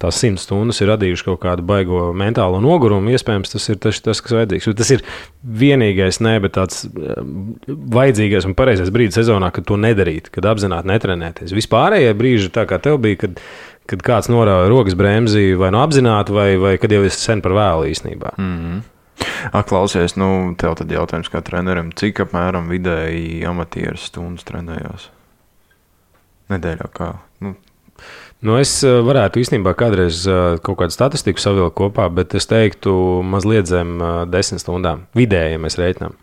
tās 100 stundas ir radījuši kaut kādu baigo mentālo nogurumu, iespējams, tas ir tas, kas vajadzīgs. Tas ir vienīgais, bet tāds vajadzīgais un pareizais brīdis sezonā, kad to nedarīt, kad apzināti netrenēties. Vispārējie brīži, tā kā tev bija, kad kāds norāva rokas bremzi vai apzināti, vai kad jau esi sen par vēlu īstenībā. Klausies, tev tad jautājums kā trenerim, cik apmēram vidēji amatieru stundas trenējās? Nedēļā kā? Es varētu īstenībā kādreiz kaut kādu statistiku savilkt kopā, bet es teiktu mazliet zem 10 stundām. Vidēji, ja mēs reiķinām.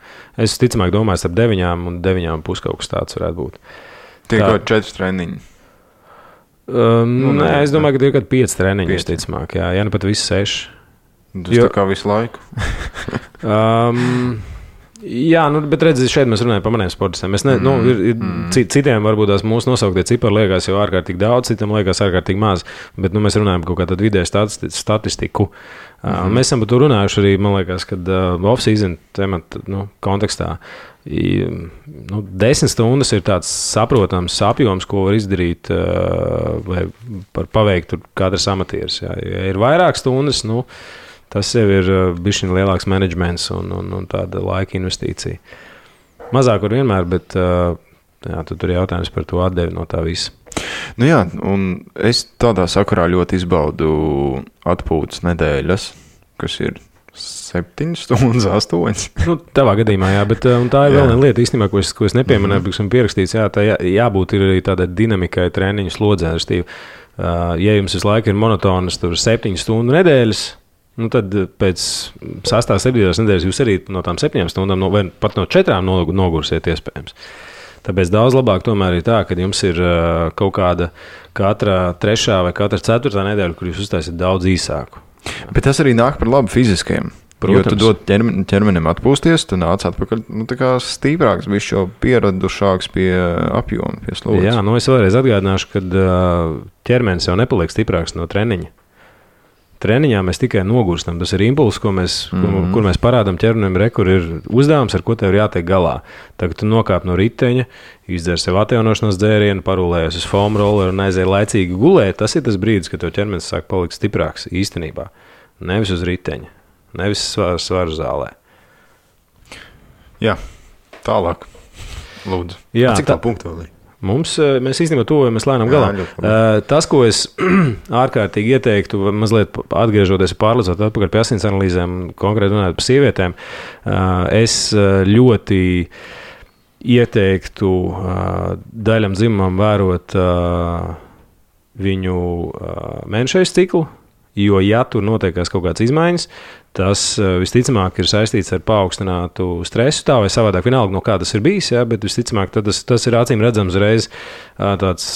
Es ticamāk domāju, starp 9 un 9,5 kaut kas tāds varētu būt. Tie kaut 4 treniņi? Nē, es domāju, ka tie ir kaut 5 treniņi, ticamāk. Jā, pat visi 6. Tas tā kā visu laiku? Jā, bet redziet, šeit mēs runājam par maniem sportistiem. Citiem varbūt tās mūsu nosauktie cipari liekas jau ārkārtīgi daudz, citiem liekas ārkārtīgi maz, bet mēs runājam par kaut kādu vidēju statistiku. Mēs esam par to runājuši arī, man liekas, kad off-season temata kontekstā. 10 stundas ir tāds saprotams apjoms, ko var izdarīt vai paveikt katrs amatieris. Jā. Ja ir vairāk stundas, tas jau ir bišķiņ lielāks menedžments un tāda laika investīcija. Mazāk var vienmēr, bet tur ir jautājums par to atdevi no tā visa. Jā, un es tādā sakarā ļoti izbaudu atpūtas nedēļas, kas ir 7 stundas, 8. Nu, tavā gadījumā, jā, bet tā ir vēl viena lieta īstenībā, ko es nepieminēju, bet esmu pierakstīts, jā, tā jābūt ir arī tādai dinamikai treniņu slodzē. Ja jums visu laiku ir monotonas 7 stundu nedēļas, nu tad pēc 6. 7. nedēļas jūs arī no tām 7 stundām, vai pat no 4 nogursiet iespējams. Tāpēc daudz labāk tomēr ir tā, ka jums ir kaut kāda katra 3. vai katra 4. nedēļa, kur jūs uztaisiet daudz īsāku. Bet tas arī nāk par labu fiziskajiem. Protams. Jo tu dod ķermenim atpūsties, tu nāc atpakaļ tā kā stīprāks, viņš jau pieradušāks pie apjoma, pie slodzes. Jā, es vēlreiz atgādināšu, ka ķermenis jau nepaliek stiprāks no treniņa. Treniņā mēs tikai nogurstam. Tas ir impulss, kur mēs parādām ķermenim, kur ir uzdevums, ar ko tev ir jātiek galā. Tagad tu nokāp no riteņa, izdzer sev atjaunošanās dzērienu, parulējies uz foam rolleru un aiziet laicīgi gulēt. Tas ir tas brīdis, kad tev ķermenis sāk palikt stiprāks īstenībā. Nevis uz riteņa, nevis svaru zālē. Jā, tālāk. Lūdzu. Jā, cik tā punktu vēl ir? Mēs īstenībā tuvojamies lēnām galā. Tas, ko es ārkārtīgi ieteiktu, mazliet atgriežoties pārlīdzot atpakaļ pie asins analīzēm, konkrēti runājot par sievietēm, es ļoti ieteiktu daļam dzimumam vērot viņu mēnešais ciklu, jo, ja tur notiekās kaut kādas izmaiņas, tas visticamāk ir saistīts ar paaugstinātu stresu, tā vai savādāk, vienalga, no kā tas ir bijis, jā, bet visticamāk tas ir acīm redzams reiz tāds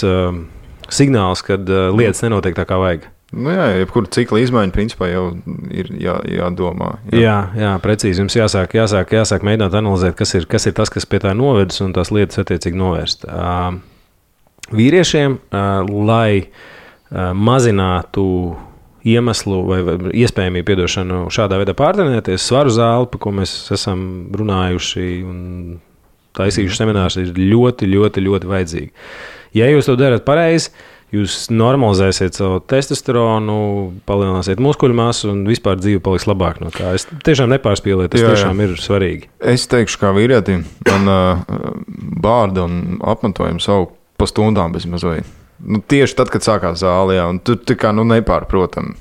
signāls, kad lietas nenotiek tā, kā vajag. Nu jā, jebkura cikla izmaiņa principā jau ir jādomā. Jā, precīzi. Jums jāsāk mēģināt analizēt, kas ir tas, kas pie tā novedis, un tās lietas attiecīgi novērst. Vīriešiem, lai mazinātu iemeslu vai iespējamību piedošanu šādā veidā pārtrenēties, svaru zāli, par ko mēs esam runājuši un taisījuši seminārus, ir ļoti, ļoti, ļoti vajadzīgi. Ja jūs to darat pareizi, jūs normalizēsiet savu testosteronu, palielināsiet muskuļu masu un vispār dzīve paliks labāk no tā. Es tiešām nepārspīlēju, tas tiešām ir svarīgi. Es teikšu, kā vīrietim, man bārda un apmetojums savu pa stundām bez mazveit. Nu, tieši tad, kad sākās zāle, un tur tā kā nepārprotam.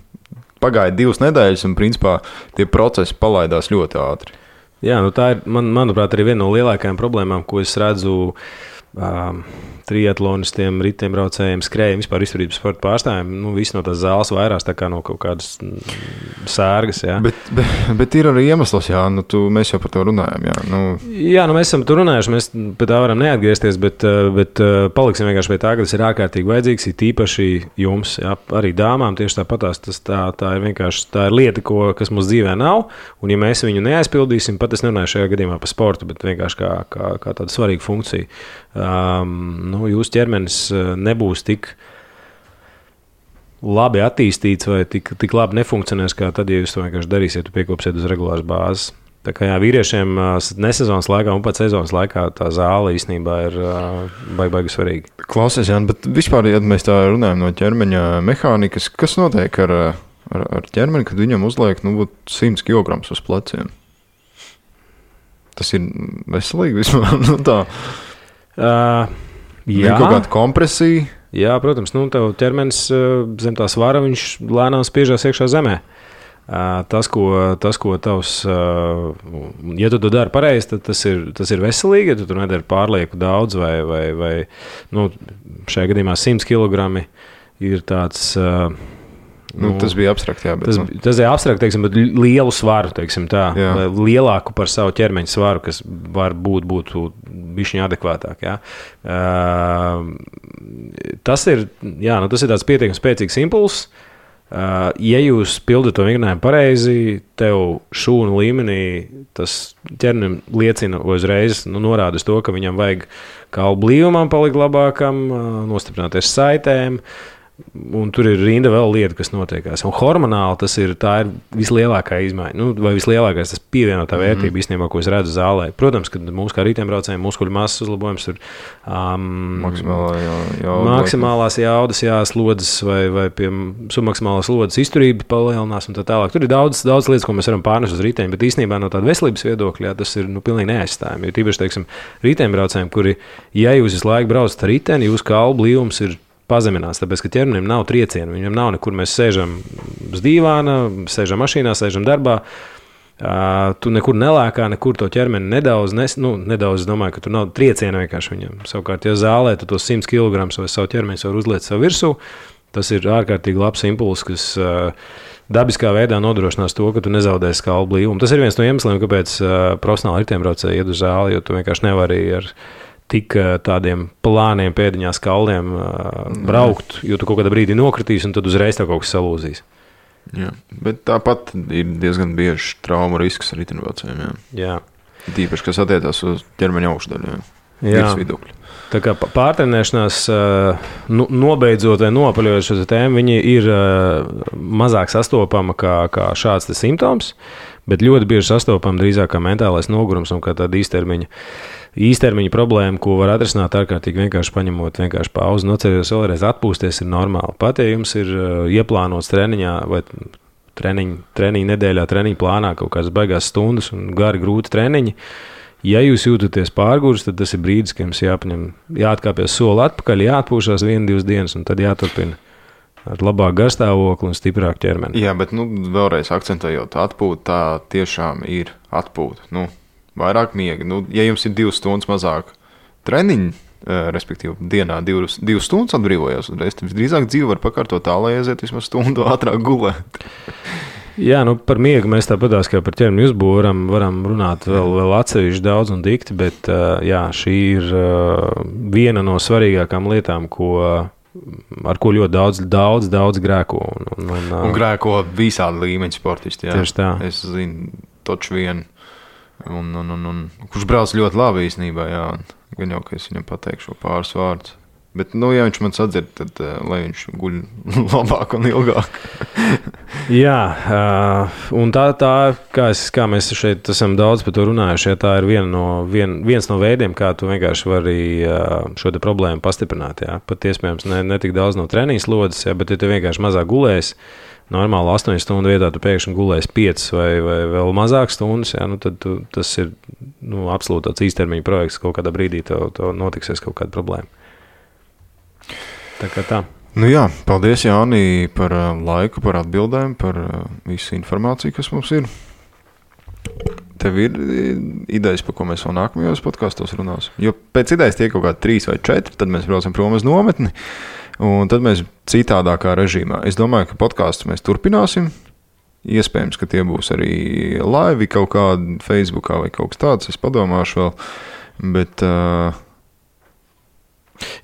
Pagāja 2 nedēļas, un principā tie procesi palaidās ļoti ātri. Jā, tā ir, manuprāt, arī viena no lielākajām problēmām, ko es redzu triatlonistiem, riteņbraucējiem, skrējiem, vispār izturības sporta pārstāvjiem. Visi no tās zāles vairās tā kā no kaut kādas sērgas. Jā. Bet ir arī iemesls, jā, mēs jau par to runājam. Jā, mēs esam tur runājuši, mēs pie tā varam neatgriezties, bet paliksim vienkārši pie tā, ka tas ir ārkārtīgi vajadzīgs, ir tīpaši jums, jā, arī dāmām tieši tāpatās. Tā ir vienkārši tā ir lieta, kas mums dzīvē nav, un ja mēs viņu neaizpildīsim, pat es nerunāju šajā gadījumā par sportu, bet vienkārši kā tāda svarīga funkcija. Jūsu ķermenis nebūs tik labi attīstīts vai tik labi nefunkcionēs, kā tad, ja jūs to vienkārši darīsiet, piekopsiet uz regulāras bāzes. Tā kā jā, vīriešiem nesezonas laikā un pat sezonas laikā tā zāle īstenībā ir baigi svarīga. Klausies, Jāni, bet vispār, ja mēs tā runājam no ķermeņa mehānikas, kas notiek ar ķermeni, kad viņam uzliek 100 kg uz pleciem? Tas ir veselīgi vispār, tā. Jā, kaut kāda kompresija. Jā, protams, tev ķermenis zem tā svara, viņš lēnām spiežās iekšā zemē. Tas, ko tavs, ja tu to dari pareizi, tad tas ir veselīgi, ja tu tur nedari pārlieku daudz vai šajā gadījumā 100 kg ir tāds. Tas bija abstrakt, jā. Bet, tas ir abstrakt, teiksim, bet lielu svaru, teiksim tā, lielāku par savu ķermeņa svaru, kas var būtu bišķiņ adekvātāk, jā. Tas ir tāds pietiekami spēcīgs impulss. Ja jūs pildat to vingrinājumu pareizi, tev šūnu līmenī tas ķermenim liecina uzreiz, norāda uz to, ka viņam vajag kaulu blīvumam palikt labākam, nostiprināties saitēm. Un tur ir rinda vēl lieta, kas notiekās. Un hormonāli tā ir vislielākā izmaiņa. Vai vislielākais tas pievienotā vērtība īstenībā, ko es redzu zālē. Protams, ka mums kā riteņbraucējiem muskuļu masas uzlabojums tur maksimālās jaudas, slodzes vai pie submaksimālās slodzes izturība palielinās un tā tālāk. Tur ir daudz lietas, ko mēs varam pārnest uz riteņu, bet īstenībā no tāda veselības viedokļa tas ir pilnīgi neaizstājami. Jo tīpaši, teiksim, riteņbraucējiem, kuri, ja jūs visu laiku braucat ar riteni, jūsu kaulu blīvums ir pazeminās, tāpēc, ka ķermenim nav triecienu, viņam nav nekur, mēs sēžam uz dīvāna, sēžam mašīnā, sēžam darbā, Tu nekur nelēkā, nekur to ķermeni nedaudz, nedaudz, es domāju, ka tur nav trieciena vienkārši viņam. Savukārt, ja zālē tu tos 100 kg vai savu ķermeni var uzliet savu virsū, tas ir ārkārtīgi labs impulss, kas dabiskā veidā nodrošinās to, ka tu nezaudēsi kalnu blīvumu. Tas ir viens no iemesliem, kāpēc profesionāli riteņbraucēji iet uz zāli, jo tu vienkārši nevari ar tik tādiem plāniem pēdiņās kalniem braukt, jo tu kaut kādā brīdī nokritīs un tad uzreiz tā kaut kas salūzīs. Jā, bet tāpat ir diezgan bieži trauma risks ar riteņbraucējiem. Jā. Tīpaši, kas attiecās uz ķermeņa augšdaļu. Virsvidukļu. Tā kā pārtrenēšanās, nobeidzot vai nopaļojot šo tēmu, viņi ir mazāk sastopama kā šāds simptoms, bet ļoti bieži sastopama drīzāk kā mentālais nogurums un kā tāda īstermiņa problēma, ko var atrisināt ārkārtīgi vienkārši paņemot vienkārši pauzi, nocerējos vēlreiz atpūsties ir normāli. Pat, ja jums ir ieplānots treniņā vai treniņa nedēļā, treniņa plānā kaut kādas baigās stundas un gari grūti treniņi, ja jūs jūtaties pārgurs, tad tas ir brīdis, ka jums jāatkāpjas soli atpakaļ, jāatpūšās 1-2 dienas un tad jāturpina ar labāku garstāvokli un stiprāku ķermeni. Jā, bet vēlreiz akcentējot, atpūta tā tiešām ir atpūta. Vairāk miega. Ja jums ir 2 stundas mazāk treniņu, respektīvi dienā 2 stundas atbrīvojās, tad visdrīzāk dzīve var pakārtot tā, lai aiziet vismaz stundu ātrāk gulēt. Jā, par miegu mēs tāpatās kā par ķermeni uzbūvu varam runāt vēl atsevišķi daudz un dikti, bet jā, šī ir viena no svarīgākām lietām, ar ko ļoti daudz grēko. Un grēko visādi līmeņi sportisti. Jā. Tieši tā. Es zinu, toču vienu. Un kurš brauc ļoti labi īstenībā, jā. Gan jau, ka es viņam pateikšu pāris vārdus. Bet, ja viņš man sadzird, tad lai viņš guļ labāk un ilgāk. Jā, un tā kā mēs šeit esam daudz par to runājuši, tā ir viens no veidiem, kā tu vienkārši vari šo te problēmu pastiprināt. Jā. Pat iespējams ne tik daudz no treniņa slodzes, jā, bet ja tu vienkārši mazāk gulēsi, normāli 8 stundu vietā tu pēkšņi gulēsi 5 vai vēl mazāk stundas, jā, tad tas ir absolūti tāds īstermiņa projekts, kaut kādā brīdī tev notiksies kaut kāda problēma. Tā kā tā. Jā, paldies Jāni par laiku, par atbildēm, par visu informāciju, kas mums ir. Tev ir idejas, par ko mēs vēl nākamajos podkastos runāsim? Jo pēc idejas tiek kaut kādi 3 vai 4, tad mēs braucam prom uz nometni, un tad mēs citādākā režīmā. Es domāju, ka podkastus mēs turpināsim. Iespējams, ka tie būs arī live kaut kādi Facebookā vai kaut kas tāds. Es padomāšu vēl, bet...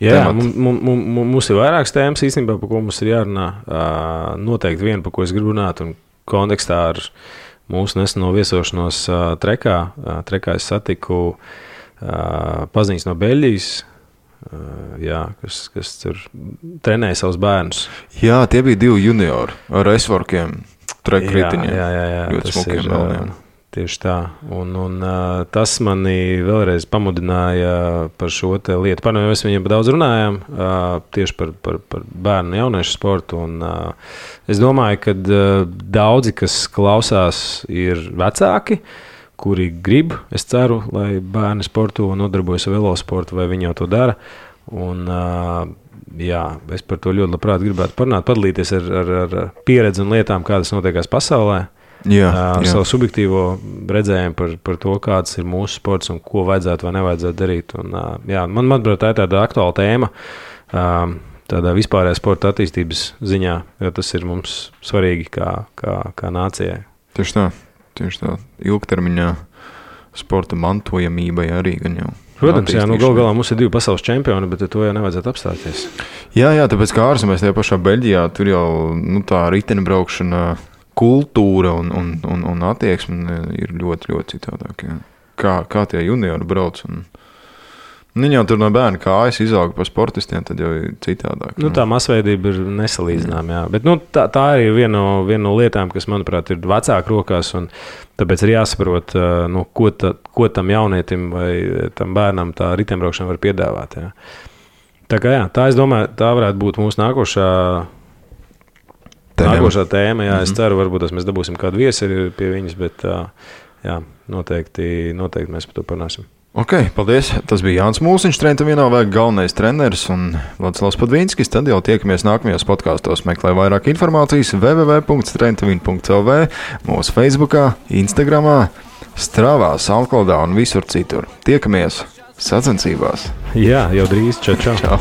Jā, mums ir vairākas tēmas īstenībā, par ko mums ir jārunā. Noteikti viena, par ko es gribu runāt, un kontekstā ar mūsu neseno viesošanos Trekā. Trekā es satiku paziņas no Beļģijas, kas tur trenēja savus bērnus. Jā, tie bija 2 juniori ar S-vorkiem, trekritiņiem. Jā, ļoti smukiem melniem. Tieši tā. Un tas mani vēlreiz pamudināja par šo te lietu. Mēs viņiem daudz runājām tieši par bērnu un jauniešu sportu. Un, es domāju, ka daudzi, kas klausās, ir vecāki, kuri grib, es ceru, lai bērni sporto un nodarbojas ar velosportu, vai viņi jau to dara. Un, jā, es par to ļoti labprāt gribētu parunāt, padalīties ar pieredzi un lietām, kādas notiekās pasaulē. Ar savu subjektīvo redzējumu par to, kāds ir mūsu sports un ko vajadzētu vai nevajadzētu darīt. Un, manuprāt, tā ir tāda aktuāla tēma tādā vispārējā sporta attīstības ziņā, jo tas ir mums svarīgi kā nācijai. Tieši tā. Ilgtermiņā sporta mantojamībai arī gan jau. Protams, galu galā mums ir 2 pasaules čempioni, bet to jau nevajadzētu apstāties. Jā, tāpēc kā ārzemēs tajā pašā Beļģijā, tur jau tā riteņbraukšana kultūra un attieksme ir ļoti, ļoti citādāk. Jā. Kā tie juniori brauc. Viņi jau tur no bērna kājas izauga par sportistiem, tad jau ir citādāk. Tā masveidība ir nesalīdzināma. Jā. Bet tā ir viena no lietām, kas, manuprāt, ir vecāku rokās. Tāpēc ir jāsaprot, ko tam jaunietim vai tam bērnam tā riteņbraukšana var piedāvāt. Jā. Tā es domāju, tā varētu būt mūsu nākošā tēma. Jā, es ceru, varbūt mēs dabūsim kādu viesi pie viņas, bet jā, noteikti mēs par to parunāsim. Ok, paldies. Tas bija Jānis Mūsiņš, Trenta Vienāvēja galvenais treneris un Vladislavs Padvīnskis. Tad jau tiekamies nākamajos podkāstos. Meklē vairāk informācijas www.trentavin.lv, mūsu Facebookā, Instagramā, Strāvā, SoundCloudā un visur citur. Tiekamies sacensībās. Jā, jau drīz. Čau.